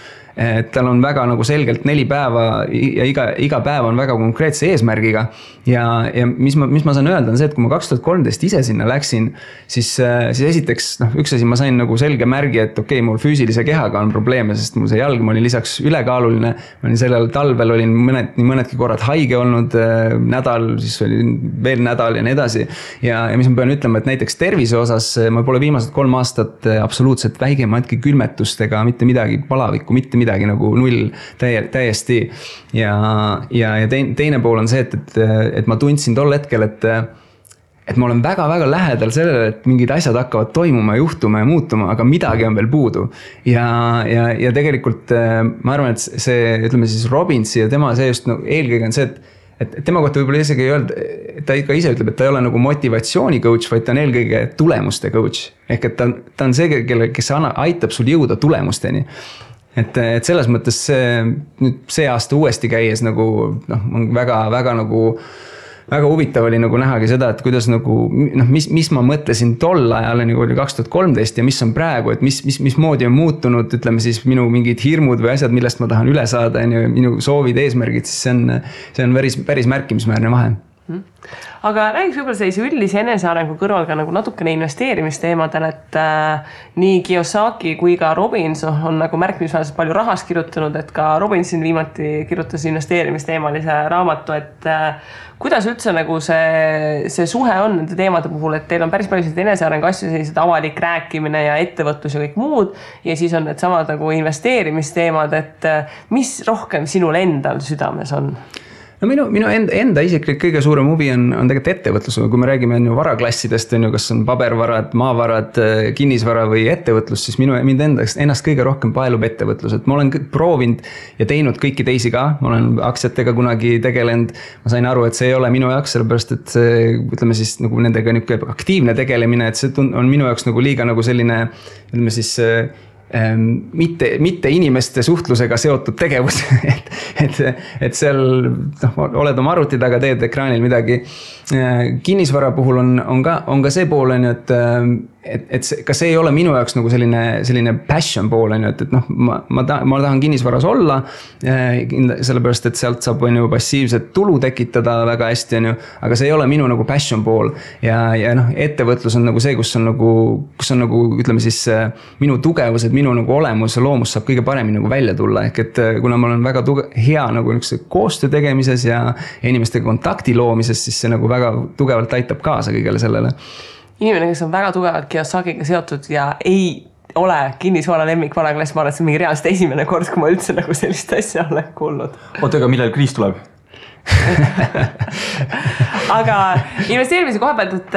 Tal on väga nagu selgelt 4 päeva ja iga päev on väga konkreetse eesmärgiga ja mis ma saan öelda on see, et kui ma 2013 ise sinna läksin, siis esiteks üks asi ma sain nagu selge märgi, et okei, mul füüsilise kehaga on probleeme, sest mul see jalg, ma olin lisaks ülekaaluline, ma olin sellel talvel olin mõnedki korrad haige olnud nädal, siis oli veel nädal ja nii edasi ja mis ma pean ütlema, et näiteks tervise osas ma pole viimased 3 aastat absoluutselt väigematki külmetustega, mitte midagi palavikku, mitte midagi nagu null täiesti ja teine pool on see, et ma tundsin tol hetkel, et ma olen väga-väga lähedal sellele, et mingid asjad hakkavad toimuma, juhtuma ja muutuma, aga midagi on veel puudu ja tegelikult ma arvan, et see, ütleme siis Robbinsi ja tema see just eelkõige on see, et tema kohta võib-olla isegi ei öelda, ta ka ise ütleb, et ta ei ole nagu motivatsiooni coach, vaid ta on eelkõige tulemuste coach ehk et ta on see, kes aitab sul jõuda tulemusteni. Et selles mõttes see aasta uuesti käies nagu on väga nagu väga huvitav oli nagu nähagi seda, et kuidas nagu mis ma mõtlesin tol ajal nagu oli 2013 ja mis on praegu, et mis moodi on muutunud, ütleme siis minu mingid hirmud või asjad, millest ma tahan üle saada ja minu soovid, eesmärgid, siis see on päris märkimisväärne vahe. Aga räägiks võib-olla sellise üldise enesearengu kõrval ka nagu natukene investeerimisteemadel, et nii Kiyosaki kui ka Robbins on nagu märkimisväärselt palju rahast kirjutanud, et ka Robbinsin viimati kirjutas investeerimisteemalise raamatu, et kuidas üldse nagu see suhe on nende teemade puhul, et teil on päris palju enesearengu asju, sellised avalik rääkimine ja ettevõtlus ja kõik muud ja siis on need samad nagu investeerimisteemad, et mis rohkem sinul endal südames on? no minu enda isiklik kõige suurem huvi on tegelikult ettevõtlus, kui me räägime varaklassidest, kas on pabervarad, maavarad, kinnisvara või ettevõtlus, siis mind ennast kõige rohkem paelub ettevõtlus, et ma olen proovinud ja teinud kõiki teisi ka, ma olen aktsiatega kunagi tegelenud, ma sain aru, et see ei ole minu jaoks, sellepärast et see, ütleme siis nagu nendega aktiivne tegelemine, et see on minu jaoks nagu liiga nagu selline, ütleme siis mitte inimeste suhtlusega seotud tegevus, et seal oled oma arvuti taga, teed ekraanil midagi. Kinnisvara puhul on ka see pool, et ka see ei ole minu jaoks nagu selline passion pool, et ma tahan kinnisvaras olla, sellepärast, et sealt saab passiivset tulu tekitada väga hästi, aga see ei ole minu nagu passion pool ja ettevõtlus on nagu see, kus on nagu ütleme siis minu tugevused, minu nagu olemus ja loomus saab kõige paremini nagu välja tulla, ehk et kuna ma olen väga hea nagu koostöö tegemises ja inimestega kontakti loomises, siis see nagu väga tugevalt aitab kaasa kõigele sellele. Inimene, kes on väga tugevalt Kiyosakiga seotud ja ei ole kinnisvara lemmik varaklass, ma arvan, et see on mingi reaalselt esimene kord, kui ma üldse nagu sellist asja olen kuulnud. Oota, aga millal kriis tuleb? Aga investeerimise koha pealt, et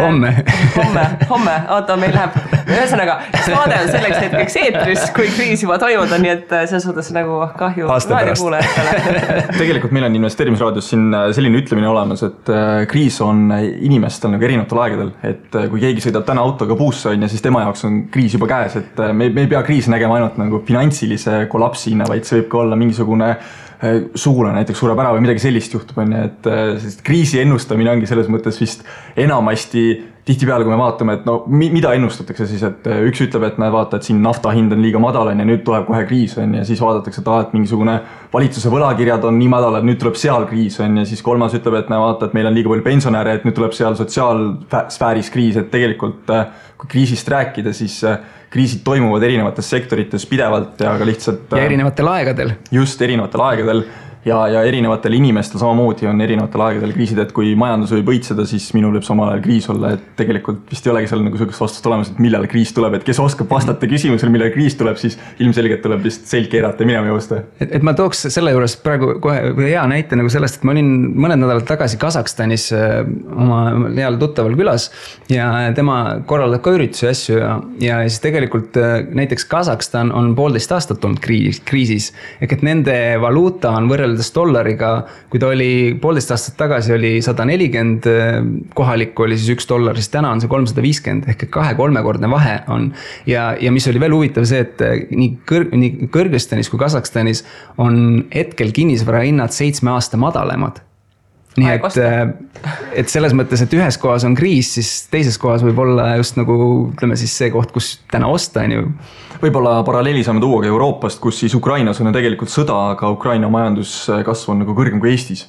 homme, oota, meil läheb ühesõnaga, saade on selleks hetkeks eetris, kui kriis juba toimub, nii et selles suhtes nagu kahju raadiokuulajatele. Tegelikult meil on investeerimisraadios siin selline ütlemine olemas, et kriis on inimestel nagu erinevatel aegadel, et kui keegi sõidab täna autoga puusse on ja siis tema jaoks on kriis juba käes, et me ei pea kriisi nägema ainult nagu finantsilise kollapsina, vaid see võib ka olla mingisugune sugulane näiteks sureb ära või midagi sellist juhtub, et kriisi ennustamine ongi selles mõttes vist enamasti tihtipeale, kui me vaatame, et mida ennustatakse siis, et üks ütleb, et vaata, et siin nafta hind on liiga madal ja nüüd tuleb kohe kriis ja siis vaadatakse, et mingisugune valitsuse võlakirjad on nii madal, et nüüd tuleb seal kriis ja siis kolmas ütleb, et vaata, et meil on liiga palju pensionäre, et nüüd tuleb seal sotsiaalsfääris kriis, et tegelikult kui kriisist rääkida, siis kriisid toimuvad erinevates sektorites pidevalt ja ka lihtsalt ja erinevatel aegadel. Just erinevatel aegadel ja erinevatel inimestel samamoodi on erinevatel aegadel kriisid, et kui majandus võib õitseda, siis minul võib samal ajal kriis olla, et tegelikult vist ei olegi seal nagu sellist vastust olemas, et millal kriis tuleb, et kes oskab vastata küsimusele, millal kriis tuleb, siis ilmselgelt tuleb vist selg keerata ja minema joosta. Et ma tooks selle juures praegu kohe hea näite nagu sellest, et ma olin mõned nädalad tagasi Kasahstanis oma heal tuttaval külas ja tema korraldab ka üritusi asju ja siis tegelikult näiteks Kasahstan on 1,5 aastat olnud kriisis, ehk et nende valuuta on võrreldes dollariga, kui ta oli 1,5 aastat tagasi oli 140 kohalikku oli siis $1, siis täna on see 350 ehk 2-3-kordne vahe on ja mis oli veel huvitav see, et nii Kõrgõzstanis kui Kasahstanis on hetkel kinnisvara hinnad 7 aasta madalemad. Nii et selles mõttes, et ühes kohas on kriis, siis teises kohas võib olla just nagu ütleme siis see koht, kus täna osta on ju. Võib-olla paralleeli saame tuua ka Euroopast, kus siis Ukrainas on tegelikult sõda, aga Ukraina majanduskasv on nagu kõrgem kui Eestis.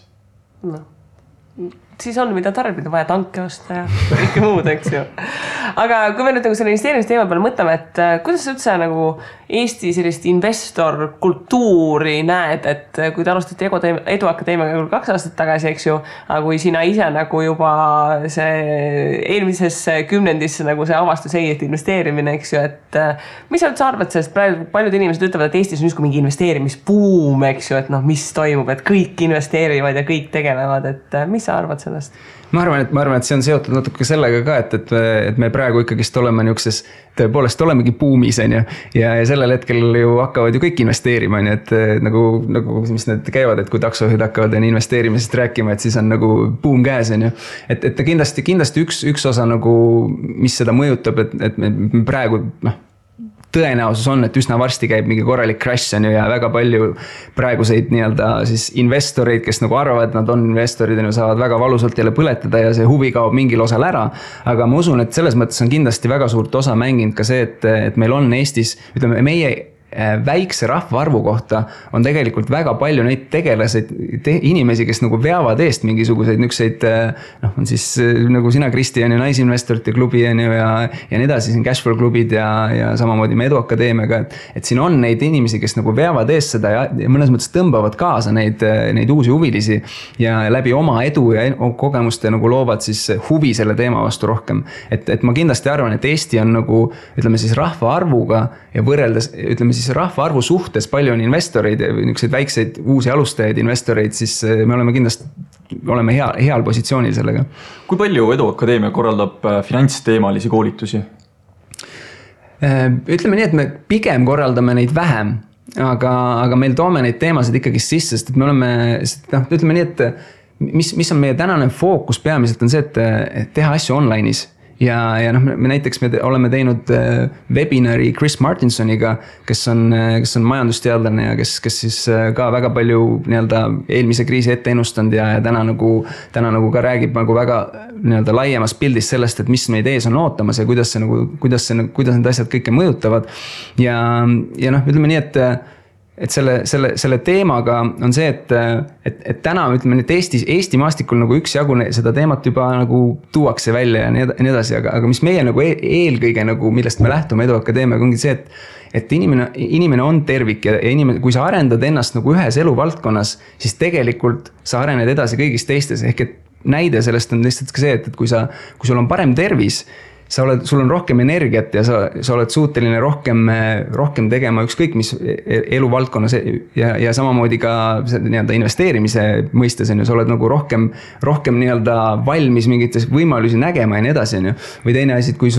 Siis on, mida tarbida, vaja tanke osta ja kõike muud, eks ju. Aga kui me nüüd nagu selle investeerimisteema peale mõtleme, et kuidas üldse nagu Eesti sellist investor kultuuri näed, et kui te alustati Edu Akadeemiaga 2 aastat tagasi, eks ju, aga kui sina ise nagu juba see eelmises kümnendisse nagu see avastus ei, et investeerimine, eks ju, et mis sa üldse arvad sellest, praegu paljud inimesed ütlevad, et Eestis on just mingi investeerimisbuum, eks ju, et mis toimub, et kõik investeerivad ja kõik tegelevad, et mis sa arvad sellest? Ma arvan, et see on seotud natuke sellega ka, et me praegu ikkagist oleme niukses, tõepoolest olemegi buumis ja sellel hetkel ju hakkavad ju kõik investeerima, et nagu mis need käivad, et kui taksojuhid hakkavad investeerimisest rääkima, et siis on nagu buum käes, et kindlasti üks osa nagu, mis seda mõjutab, et me praegu tõenäosus on, et üsna varsti käib mingi korralik crash ja väga palju praeguseid nii-öelda siis investoreid, kes nagu arvavad, et nad on investorid ja saavad väga valusalt jälle põletada ja see huvi kaob mingil osal ära. Aga ma usun, et selles mõttes on kindlasti väga suurt osa mänginud ka see, et meil on Eestis, ütleme, meie väikse rahvaarvu kohta on tegelikult väga palju neid tegelaseid inimesi, kes nagu veavad eest mingisuguseid nükseid, on siis nagu sina, Kristi, on ju naisinvestorite klubi on ju ja nii edasi, siin Cashflow klubid ja samamoodi me Edu Akadeemiaga, et siin on neid inimesi, kes nagu veavad eest seda ja mõnes mõttes tõmbavad kaasa neid uusi huvilisi ja läbi oma edu ja kogemuste nagu loovad siis huvi selle teema vastu rohkem. Et ma kindlasti arvan, et Eesti on nagu, ütleme siis rahvaarvuga ja võrreldes, ütleme siis siis rahvaarvu suhtes palju on investoreid, niisuguseid väikseid uusi alustajaid investoreid, siis me oleme kindlasti heal positsioonil sellega. Kui palju Edu Akadeemia korraldab finantsteemalisi koolitusi? Ütleme nii, et me pigem korraldame neid vähem, aga meil toome neid teemasid ikkagi sisse, sest et me oleme, ütleme nii, et mis on meie tänane fookus peamiselt on see, et teha asju online'is. Ja me näiteks me oleme teinud webinari Chris Martinsoniga, kes on majandusteadlane ja kes siis ka väga palju nii-öelda eelmise kriisi ette ennustanud ja täna nagu ka räägib nagu väga nii-öelda laiemas pildis sellest, et mis meid ees on ootamas ja kuidas need asjad kõike mõjutavad. Ja ütleme nii, et selle teemaga on see, et täna ütleme nii, et Eesti maastikul nagu üksjagu seda teemat juba nagu tuuakse välja ja nii edasi, aga mis meie nagu eelkõige nagu, millest me lähtume Edu Akadeemiaga ongi see, et inimene on tervik ja inimene, kui sa arendad ennast nagu ühes eluvaldkonnas, siis tegelikult sa arened edasi kõigis teistes, ehk et näide sellest on lihtsalt ka see, et kui sul on parem tervis, sul on rohkem energiat ja sa oled suuteline rohkem tegema ükskõik mis eluvaldkonnas ja samamoodi ka nii-öelda investeerimise mõistes on ju, sa oled nagu rohkem nii-öelda valmis mingites võimalusi nägema ja nii edasi on ju. Või teine asi, kui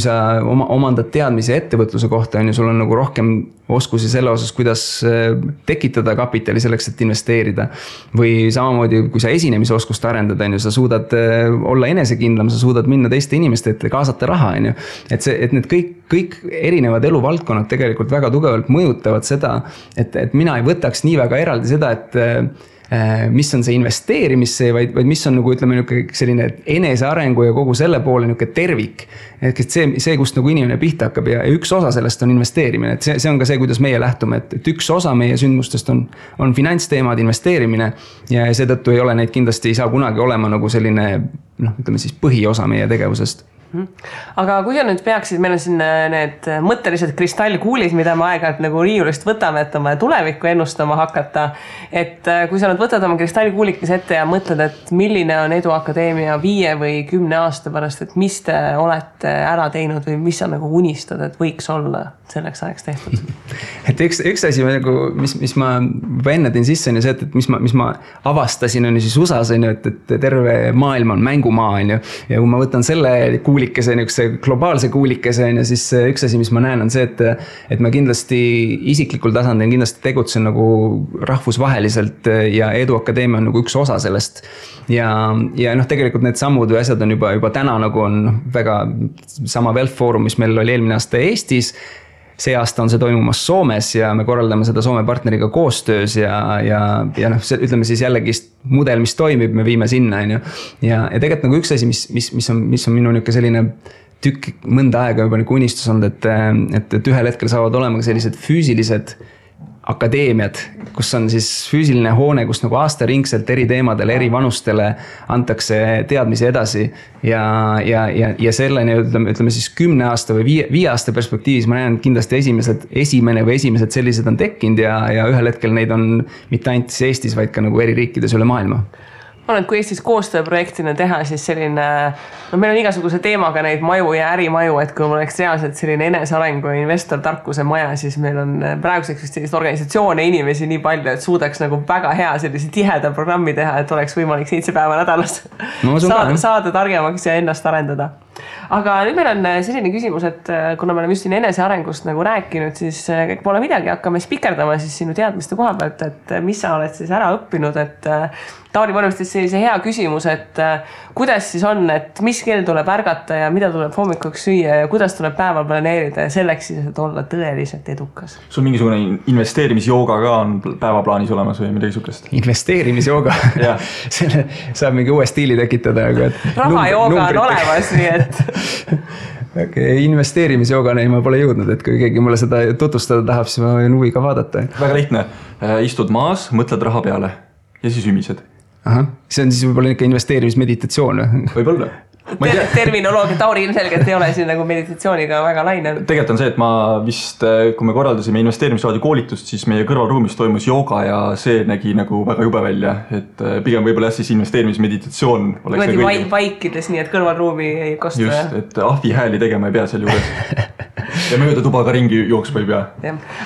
sa omandad teadmise ettevõtluse kohta on ju, sul on nagu rohkem oskusi selle osas, kuidas tekitada kapitali selleks, et investeerida. Või samamoodi, kui sa esinemise oskust arendada, sa suudad olla enesekindlam, sa suudad minna teiste inimeste ette, kaasata raha. Et need kõik erinevad eluvaldkonnad tegelikult väga tugevalt mõjutavad seda, et mina ei võtaks nii väga eraldi seda, et mis on see investeerimisse, vaid mis on nagu ütleme selline enesearengu ja kogu selle poole niuke tervik. Et see kust nagu inimene pihta hakkab ja üks osa sellest on investeerimine. Et see on ka see, kuidas meie lähtume, et üks osa meie sündmustest on finantsteemad, investeerimine ja seetõttu ei ole neid kindlasti ei saa kunagi olema nagu selline ütleme siis põhiosa meie tegevusest. Aga kui sa nüüd peaksid, meil on siin need mõttelised kristallkuulid, mida me aeg-ajalt nagu riiulist võtame, et oma tulevikku ennustama hakata. Et kui sa nüüd võtad oma kristallkuulikes ette ja mõtled, et milline on Edu Akadeemia 5 või 10 aasta pärast, et mis te olete ära teinud või mis sa nagu unistad, et võiks olla selleks ajaks tehtud? Et üks asi, mis ma enne tõin sisse, on ju see, et mis ma avastasin on ju siis USAs, on ju, et terve maailm on mängumaa, on ju. Ja kui ma võtan selle kuulikese, globaalse kuulikese, on ju, siis üks asi, mis ma näen, on see, et ma kindlasti isiklikul tasandil kindlasti tegutsen nagu rahvusvaheliselt ja Edu Akadeemia on nagu üks osa sellest. Ja tegelikult need sammud või asjad on juba täna nagu on väga sama Wealth Forum, mis meil oli eelmine aasta Eestis. See aasta on see toimumas Soomes ja me korraldame seda Soome partneriga koostöös ja ütleme siis jällegi mudel, mis toimib, me viime sinna. Ja tegelikult nagu üks asi, mis on minu niuke selline tükk mõnda aega juba nagu unistus olnud, et ühel hetkel saavad olema sellised füüsilised akadeemiad, kus on siis füüsiline hoone, kus nagu aastaringselt eri teemadele, eri vanustele antakse teadmisi edasi ja selleni ütleme siis 10 aasta või 5 aasta perspektiivis ma näen kindlasti esimesed sellised on tekkinud ja ühel hetkel neid on mitte ainult Eestis, vaid ka nagu eri riikides üle maailma. Kui Eestis koostööprojektina teha, siis selline, meil on igasuguse teemaga neid maju ja ärimaju, et kui mul oleks reaalselt selline enesearengu ja investor tarkuse maja, siis meil on praeguseks sellist organisatsioone inimesi nii palju, et suudaks nagu väga hea sellise tiheda programmi teha, et oleks võimalik 7 päeva nädalas saada targemaks ja ennast arendada. Aga nüüd meil on selline küsimus, et kuna me oleme just siin enesearengust nagu rääkinud, siis pole midagi, hakkame spikerdama siis sinu teadmiste koha pealt, et mis sa oled siis ära õppinud, et Tauri panustas sellise hea küsimus, et kuidas siis on, et mis kell tuleb ärgata ja mida tuleb hommikuks süüa ja kuidas tuleb päeva planeerida ja selleks siis, et olla tõeliselt edukas. Sul mingisugune investeerimisjooga ka on päevaplaanis olemas või midagi sukest? Investeerimisjooga? Selle saab mingi uue stiili tekitada. Rahajooga on olemas, nii et... Okay, investeerimisjoogane ma pole jõudnud, et kui keegi mulle seda tutvustada tahab, siis ma võin huviga vaadata. Väga lihtne. Istud maas, mõtled raha peale ja siis ümised. Aha, see on siis võib-olla ikka investeerimismeditatsioon. Võib-olla. Terminoloogia Tauri ilmselgelt ei ole siin nagu meditatsiooniga väga laine. Tegelikult on see, et ma vist, kui me korraldasime investeerimisraadi koolitust, siis meie kõrvalruumis toimus jooga ja see nägi nagu väga jube välja. Et pigem võib-olla siis investeerimismeditatsioon oleks nagu vaikides, nii et kõrvalruumi ei kosta. Just, et ahvi hääli tegema ei pea seal juures. ja mööda tuba ka ringi jooksma ei pea.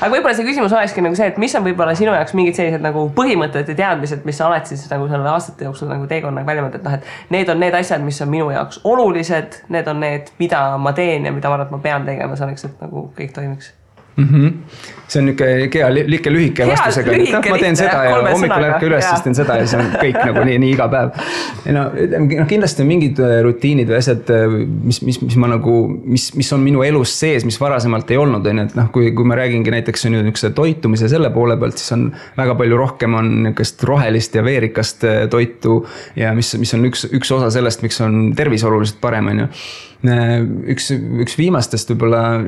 Aga võib-olla see küsimus olekski nagu see, et mis on võib-olla sinu jaoks mingid sellised nagu põhimõtted ja teadmised, mis sa oled siis nagu selle aastate jooksul nagu teekonnaga välja mõtled, et need on need asjad, mis on minu jaoks olulised, need on need, mida ma teen ja mida ma arvan, et ma pean tegema selleks, et nagu kõik toimiks. See on niisugune lühike vastusega, et ma teen seda ja hommikul ärke üles, siis teen seda ja see on kõik nagu nii iga päev. Kindlasti on mingid rutiinid või asjad, mis on minu elus sees, mis varasemalt ei olnud. Et kui ma räägingi näiteks toitumise selle poole pealt, siis on väga palju rohkem on niisugust rohelist ja veerikast toitu ja mis on üks osa sellest, miks on tervis oluliselt parem. Üks viimastest võib-olla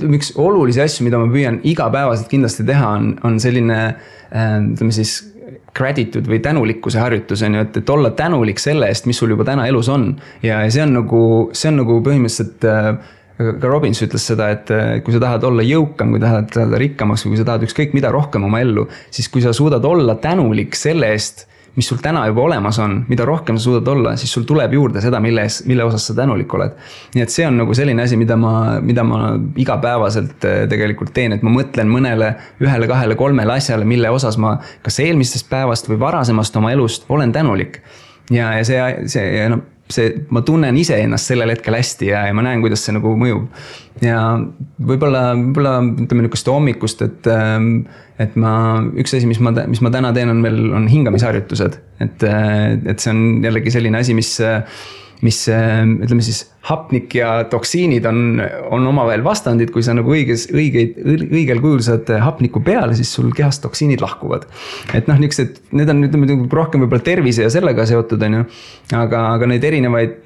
üks olulisi asju, mida ma püüan igapäevaselt kindlasti teha, on selline gratitude või tänulikkuse harjutus, et olla tänulik selle eest, mis sul juba täna elus on. Ja see on nagu põhimõtteliselt ka Robbins ütles seda, et kui sa tahad olla jõukam, kui tahad rikkamaks või kui sa tahad ükskõik mida rohkem oma ellu, siis kui sa suudad olla tänulik selle eest, mis sul täna juba olemas on, mida rohkem sa suudad olla, siis sul tuleb juurde seda, mille osas sa tänulik oled. Nii et see on nagu selline asi, mida ma igapäevaselt tegelikult teen, et ma mõtlen mõnele 1, 2, 3 asjale, mille osas ma kas eelmistest päevast või varasemast oma elust olen tänulik. Ja ma tunnen ise ennast sellel hetkel hästi ja ma näen, kuidas see nagu mõjub. Ja võib-olla ütleme niisugust hommikust, et üks asi, mis ma täna teen, on hingamisharjutused. Et see on jällegi selline asi, mis ütleme siis hapnik ja toksiinid on omavahel vastandid, kui sa nagu õigel kujul saad hapniku peale, siis sul kehast toksiinid lahkuvad. Et need on rohkem võib-olla tervise ja sellega seotud, aga neid erinevaid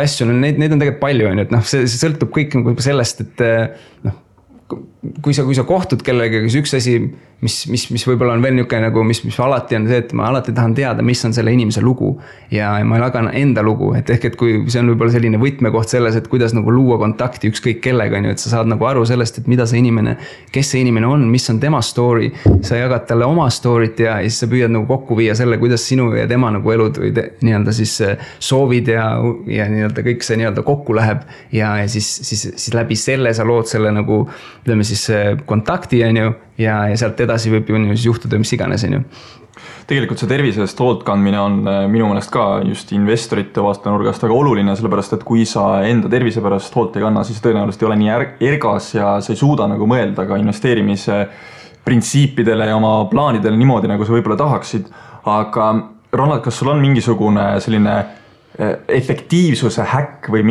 asju, neid on tegelikult palju, et see sõltub kõik sellest, et kui sa kohtud kellega, siis üks asi, mis võib-olla on veel niisugune nagu, mis alati on see, et ma alati tahan teada, mis on selle inimese lugu ja ma jagan enda lugu, et kui see on võib-olla selline võtmekoht selles, et kuidas nagu luua kontakti ükskõik kellega, et sa saad nagu aru sellest, et mida see inimene, kes see inimene on, mis on tema story, sa jagad talle oma story't ja siis sa püüad nagu kokku viia selle, kuidas sinu ja tema nagu elud või nii-öelda siis soovid ja nii-öelda kõik see nii-öelda kokku läheb ja siis läbi selle sa lood selle nagu, ütleme siis kontakti ja sealt edasi võib ju juhtuda mis iganes. Tegelikult see tervisest hoolt kandmine on minu meelest ka just investorite vaatenurgast väga oluline, sellepärast et kui sa enda tervise pärast hoolt ei kanna, siis tõenäoliselt ei ole nii ergas ja sa ei suuda nagu mõelda ka investeerimise printsiipidele ja oma plaanidele niimoodi, nagu sa võib-olla tahaksid. Aga Ronald, kas sul on mingisugune selline efektiivsuse häkk või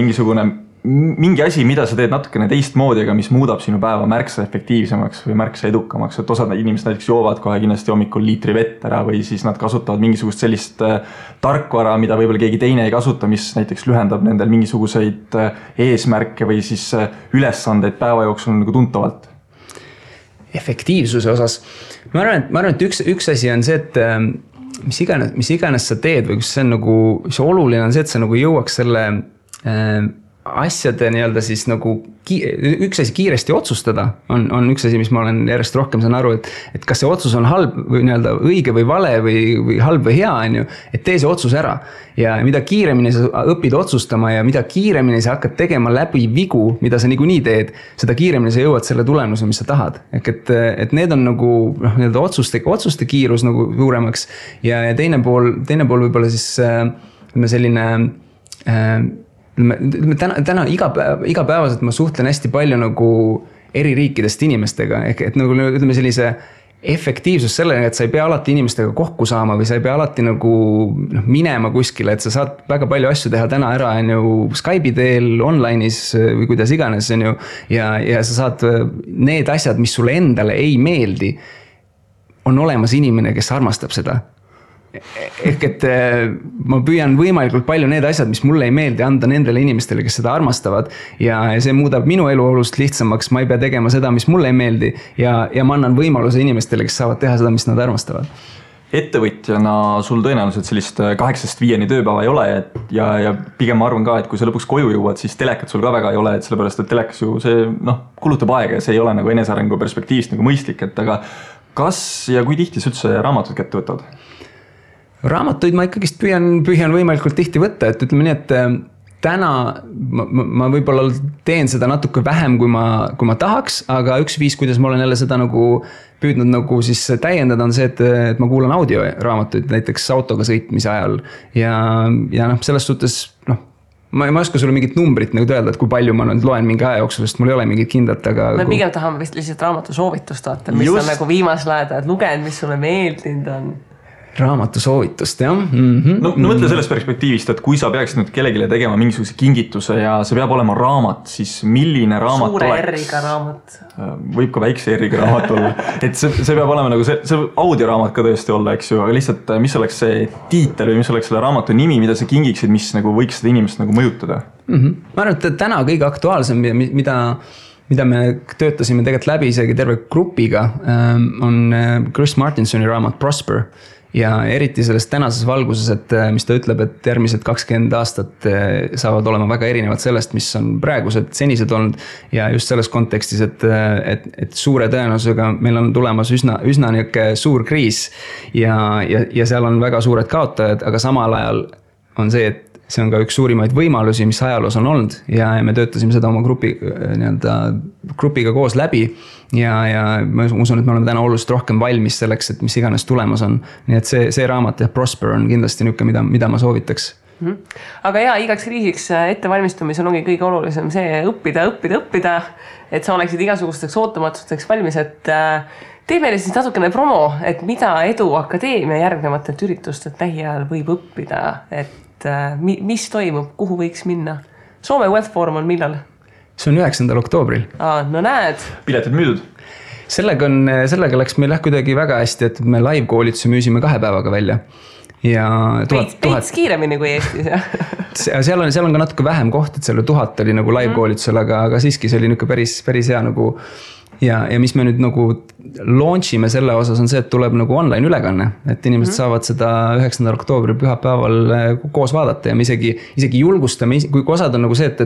mingi asi, mida sa teed natukene teistmoodi, aga mis muudab sinu päeva märksa efektiivsemaks või märksa edukamaks, et osad inimesed näiteks joovad kohe kindlasti hommikul liitri vett ära või siis nad kasutavad mingisugust sellist tarkvara, mida võib-olla keegi teine ei kasuta, mis näiteks lühendab nendel mingisuguseid eesmärke või siis ülesandeid päeva jooksul nagu tuntavalt. Efektiivsuse osas. Ma arvan, et üks asi on see, et mis iganes sa teed või kus see on nagu, see oluline on see, et sa nagu jõuaks selle asjade nii-öelda siis nagu üks asi kiiresti otsustada on üks asi, mis ma olen järjest rohkem saan aru, et kas see otsus on halb või nii-öelda õige või vale või halb või hea, et tee see otsus ära. Ja mida kiiremini sa õpid otsustama ja mida kiiremini sa hakkad tegema läbi vigu, mida sa niikuinii teed, seda kiiremini sa jõuad selle tulemuse, mis sa tahad. Et need on nagu nii-öelda otsuste kiirus nagu suuremaks ja teine pool võib-olla siis selline täna igapäevaselt ma suhtlen hästi palju nagu eri riikidest inimestega, et nagu ütleme sellise efektiivsus sellega, et sa ei pea alati inimestega kokku saama või sa ei pea alati nagu minema kuskile, et sa saad väga palju asju teha täna ära Skype'i teel, online'is või kuidas iganes ja sa saad need asjad, mis sulle endale ei meeldi, on olemas inimene, kes armastab seda. Et ma püüan võimalikult palju need asjad, mis mulle ei meeldi, anda nendele inimestele, kes seda armastavad ja see muudab minu elu olust lihtsamaks, ma ei pea tegema seda, mis mulle ei meeldi ja ma annan võimaluse inimestele, kes saavad teha seda, mis nad armastavad. Ettevõtjana sul tõenäoliselt sellist 8-5 tööpäeva ei ole ja pigem ma arvan ka, et kui sa lõpuks koju jõuad, siis telekat sul ka väga ei ole, et sellepärast, et telekas ju see kulutab aega ja see ei ole nagu enesearengu perspektiivist nagu mõistlik, et aga kas ja kui tihti sa üldse raamatud kätte võtad? Raamatuid ma ikkagist püüan võimalikult tihti võtta, et ütleme nii, täna ma võib-olla teen seda natuke vähem, kui ma tahaks, aga üks viis, kuidas ma olen jälle seda nagu püüdnud nagu siis täiendada on see, et ma kuulan audioraamatuid näiteks autoga sõitmise ajal ja selles suhtes ma ei oska sulle mingit numbrit nagu öelda, et kui palju ma nüüd loen mingi aja jooksul, sest mul ei ole mingit kindlat, aga me pigem tahame vist lihtsalt raamatu soovitust vaata, mis on nagu viimasel ajal lugenud, mis sulle meeldinud on. Raamatu soovitust, jah. No mõtle sellest perspektiivist, et kui sa peaksid nüüd kellegile tegema mingisuguse kingituse ja see peab olema raamat, siis milline raamat suure R-iga raamat. Võib ka väikse R-iga raamat olla. Et see peab olema nagu see audioraamat ka tõesti olla, eks ju, aga lihtsalt mis oleks see tiitel või mis oleks selle raamatu nimi, mida sa kingiksid, mis nagu võiks seda inimest nagu mõjutada? Ma arvan, et täna kõige aktuaalsem, mida me töötasime tegelikult läbi isegi terve grupiga, on Chris Martinsoni raamat Prosper. Ja eriti selles tänases valguses, et mis ta ütleb, et järgmised 20 aastat saavad olema väga erinevad sellest, mis on praegused senised olnud. Ja just selles kontekstis, et suure tõenäosusega meil on tulemas üsna niisugune suur kriis ja seal on väga suured kaotajad, aga samal ajal on see, et see on ka üks suurimaid võimalusi, mis ajaloos on olnud ja me töötasime seda oma grupiga koos läbi ja ma usun, et me oleme täna oluliselt rohkem valmis selleks, et mis iganes tulemas on. Nii et see raamat ja Prosper on kindlasti niisugune, mida ma soovitaks. Aga igaks kriisiks ettevalmistumisel ongi kõige olulisem see õppida, et sa oleksid igasugusteks ootamatusteks valmis, et tee meile siis natukene promo, et mida Edu Akadeemia järgnevatelt üritustelt lähiajal võib õppida, et mis toimub, kuhu võiks minna? Soome Wealth Forum on millal? See on 9. oktoobril. No näed. Piletid müüdud? Sellega läks meil kuidagi väga hästi, et me live-koolituse müüsime 2 päevaga välja. Ja Peits kiiremini kui Eestis. Seal on ka natuke vähem koht, et seal 1000 oli nagu live-koolitusel, aga siiski see oli päris hea nagu. Ja mis me nüüd nagu launchime selle osas on see, et tuleb nagu online ülekanne, et inimesed saavad seda 9. oktoobri pühapäeval koos vaadata ja me isegi julgustame, kui osad on nagu see, et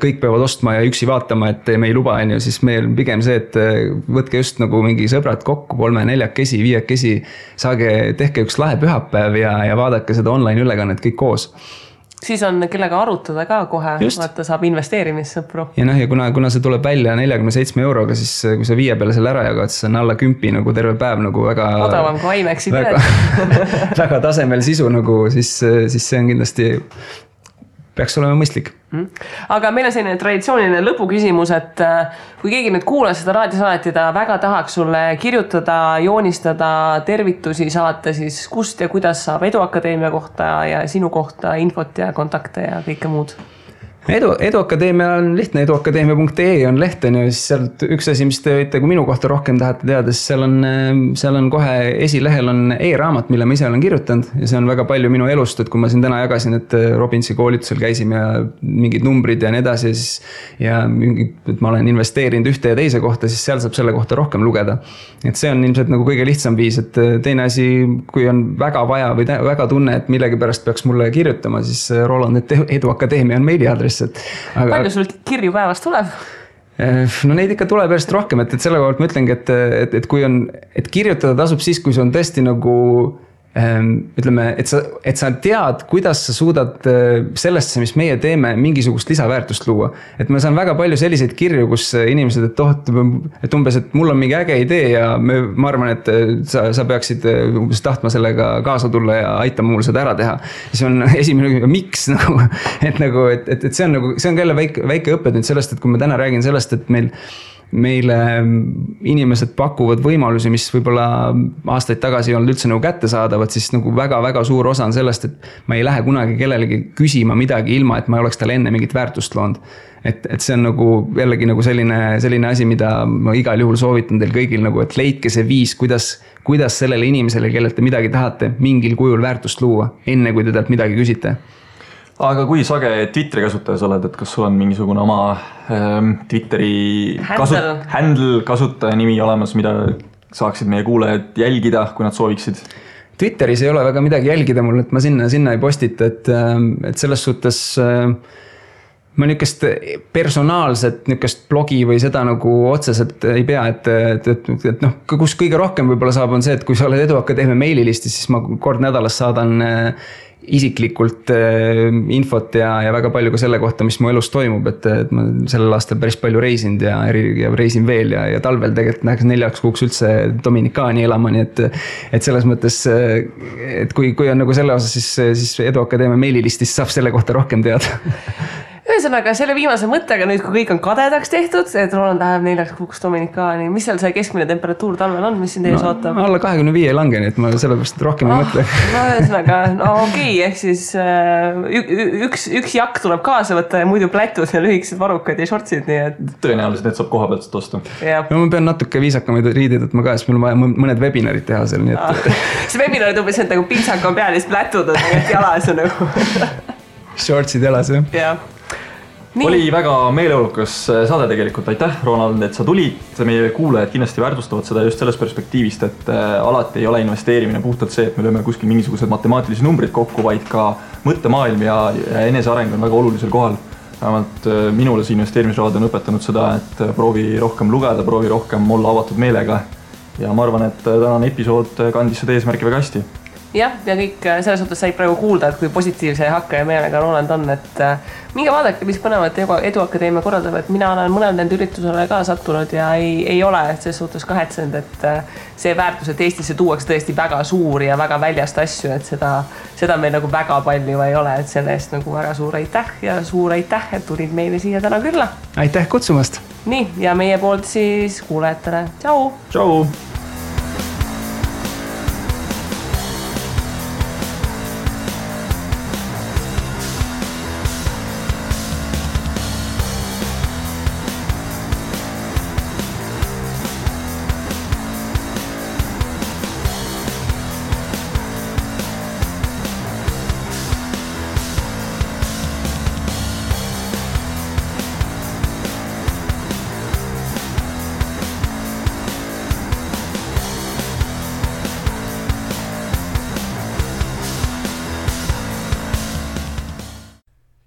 kõik peavad ostma ja üksi vaatama, et me ei luba, siis meil pigem see, et võtke just nagu mingi sõbrad kokku 3-4-kesi, 5-kesi, tehke üks lahe pühapäev ja vaadake seda online ülekannet kõik koos. Siis on kellega arutada ka kohe, vaata saab investeerimissõpru. Ja kuna see tuleb välja 47 euroga, siis kui sa 5 peale selle ära jagad, siis on alla 10 nagu terve päev nagu väga odavam kui IMAX-i väga tasemel sisu nagu, siis see on kindlasti peaks olema mõistlik. Aga meil on selline traditsiooniline lõpuküsimus, et kui keegi nüüd kuulas seda raadiosaadet ja ta väga tahaks sulle kirjutada, joonistada, tervitusi saata, siis kust ja kuidas saab Edu Akadeemia kohta ja sinu kohta infot ja kontakte ja kõike muud? Edu Akadeemia on lihtne, eduakadeemia.ee on leht, ja siis sealt üks asi, mis te võite, kui minu kohta rohkem tahate teada, siis seal on kohe esilehel on e-raamat, mille ma ise olen kirjutanud ja see on väga palju minu elust, et kui ma siin täna jagasin, et Robinsi koolitusel käisime ja mingid numbrid ja nii edasi ja et ma olen investeerinud ühte ja teise kohta, siis seal saab selle kohta rohkem lugeda. Et see on ilmselt nagu kõige lihtsam viis, et teine asi, kui on väga vaja või väga tunne, et millegi pärast peaks mulle kirjutama, siis Roland, et Edu Akadeemia on meiliaadress. Palju sul kirju päevast tuleb? No neid ikka tuleb järjest rohkem, et selle kohalt ma ütlengi, et kui on, et kirjutada tasub siis, kui see on tõesti nagu ütleme, et sa tead, kuidas sa suudad sellesse, mis meie teeme, mingisugust lisaväärtust luua. Et ma saan väga palju selliseid kirju, kus inimesed, et umbes, et mul on mingi äge idee ja ma arvan, et sa peaksid umbes tahtma sellega kaasa tulla ja aitama mul seda ära teha. Ja see on esimene, miks nagu, et see on jälle väike õppetund sellest, et kui ma täna räägin sellest, et meile inimesed pakuvad võimalusi, mis võib-olla aastaid tagasi ei olnud üldse nagu kätte saadavad, siis nagu väga-väga suur osa on sellest, et ma ei lähe kunagi kellelegi küsima midagi ilma, et ma ei oleks talle enne mingit väärtust loonud. Et see on nagu jällegi nagu selline asi, mida ma igal juhul soovitan teil kõigil nagu, et leidke see viis, kuidas sellele inimesele, kellelt te midagi tahate, mingil kujul väärtust luua, enne kui te talt midagi küsite. Aga kui sage Twitteri kasutajas oled, et kas sul on mingisugune oma Twitteri handle kasutaja nimi olemas, mida saaksid meie kuulajad jälgida, kui nad sooviksid? Twitteris ei ole väga midagi jälgida mul, et ma sinna ei postita, et selles suhtes ma niukest personaalset niukest blogi või seda nagu otseselt ei pea, et noh, kus kõige rohkem võib-olla saab on see, et kui sa oled Eduakadeemia meililistis, siis ma kord nädalas saadan isiklikult infot ja väga palju ka selle kohta, mis mu elus toimub, et ma sellel aastal päris palju reisinud ja reisin veel ja talvel tegelikult läheks 4 kuuks üldse Dominikaani elama, nii et selles mõttes, et kui on nagu selle osas, siis Eduakadeemia meililistis saab selle kohta rohkem teada. Ühesõnaga, selle viimase mõttega nüüd, kui kõik on kadedaks tehtud, et Roland läheb 4 kuuks Dominikaani, mis seal see keskmine temperatuur talvel on, mis siin teie ootab? Alla 25 ei lange, nii et ma sellepärast rohkem ei mõtle. No ühesõnaga, okei, ehk siis üks jakk tuleb kaasa võtta ja muidu plätud ja lühikesed varrukad ja shortsid, nii et... Tõenäoliselt need saab koha pealt osta. No ma pean natuke viisakamaid riided võtma ka, sest mul on vaja mõned webinarid teha seal, nii et... See webinarid umbes on nagu pintsak on peal ja siis plätud on jalas ja nagu... Shortsid jalas, jah. Jah. Nii. Oli väga meeleolukas saade tegelikult, aitäh Ronald, et sa tulid, meie kuulajad kindlasti väärtustavad seda just sellest perspektiivist, et alati ei ole investeerimine puhtalt see, et me lööme kuskil mingisugused matemaatilisi numbrid kokku, vaid ka mõttemaailm ja eneseareng on väga olulisel kohal. Vähemalt minule see investeerimisraad on õpetanud seda, et proovi rohkem lugeda, proovi rohkem olla avatud meelega ja ma arvan, et tänane episood kandis seda eesmärki väga hästi. Jah, ja kõik selles suhtes said praegu kuulda, et kui positiivse hakka ja meelega Roland on, et minge vaadake, mis põnevat Eduakadeemia korraldab, et mina olen mõnel nende üritusele ka sattunud ja ei ole selles suhtes kahetsenud, et see väärtus, et Eestisse tuuakse tõesti väga suur ja väga väljast asju, et seda meil nagu väga palju ei ole, et selle eest nagu väga suur aitäh ja suur aitäh, et tulid meile siia täna külla. Aitäh kutsumast! Nii, ja meie poolt siis kuulajatele. Tšau! Tšau!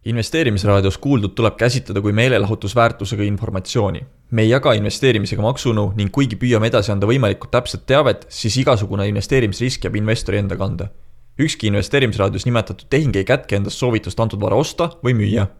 Investeerimisraadios kuuldud tuleb käsitleda kui meelelahutusväärtusega informatsiooni. Me ei jaga investeerimisega maksunu ning kuigi püüame edasi anda võimalikult täpset teavet, siis igasugune investeerimisrisk jääb investori enda kanda. Ükski investeerimisraadios nimetatud tehing ei kätke endast soovitust antud vara osta või müüa.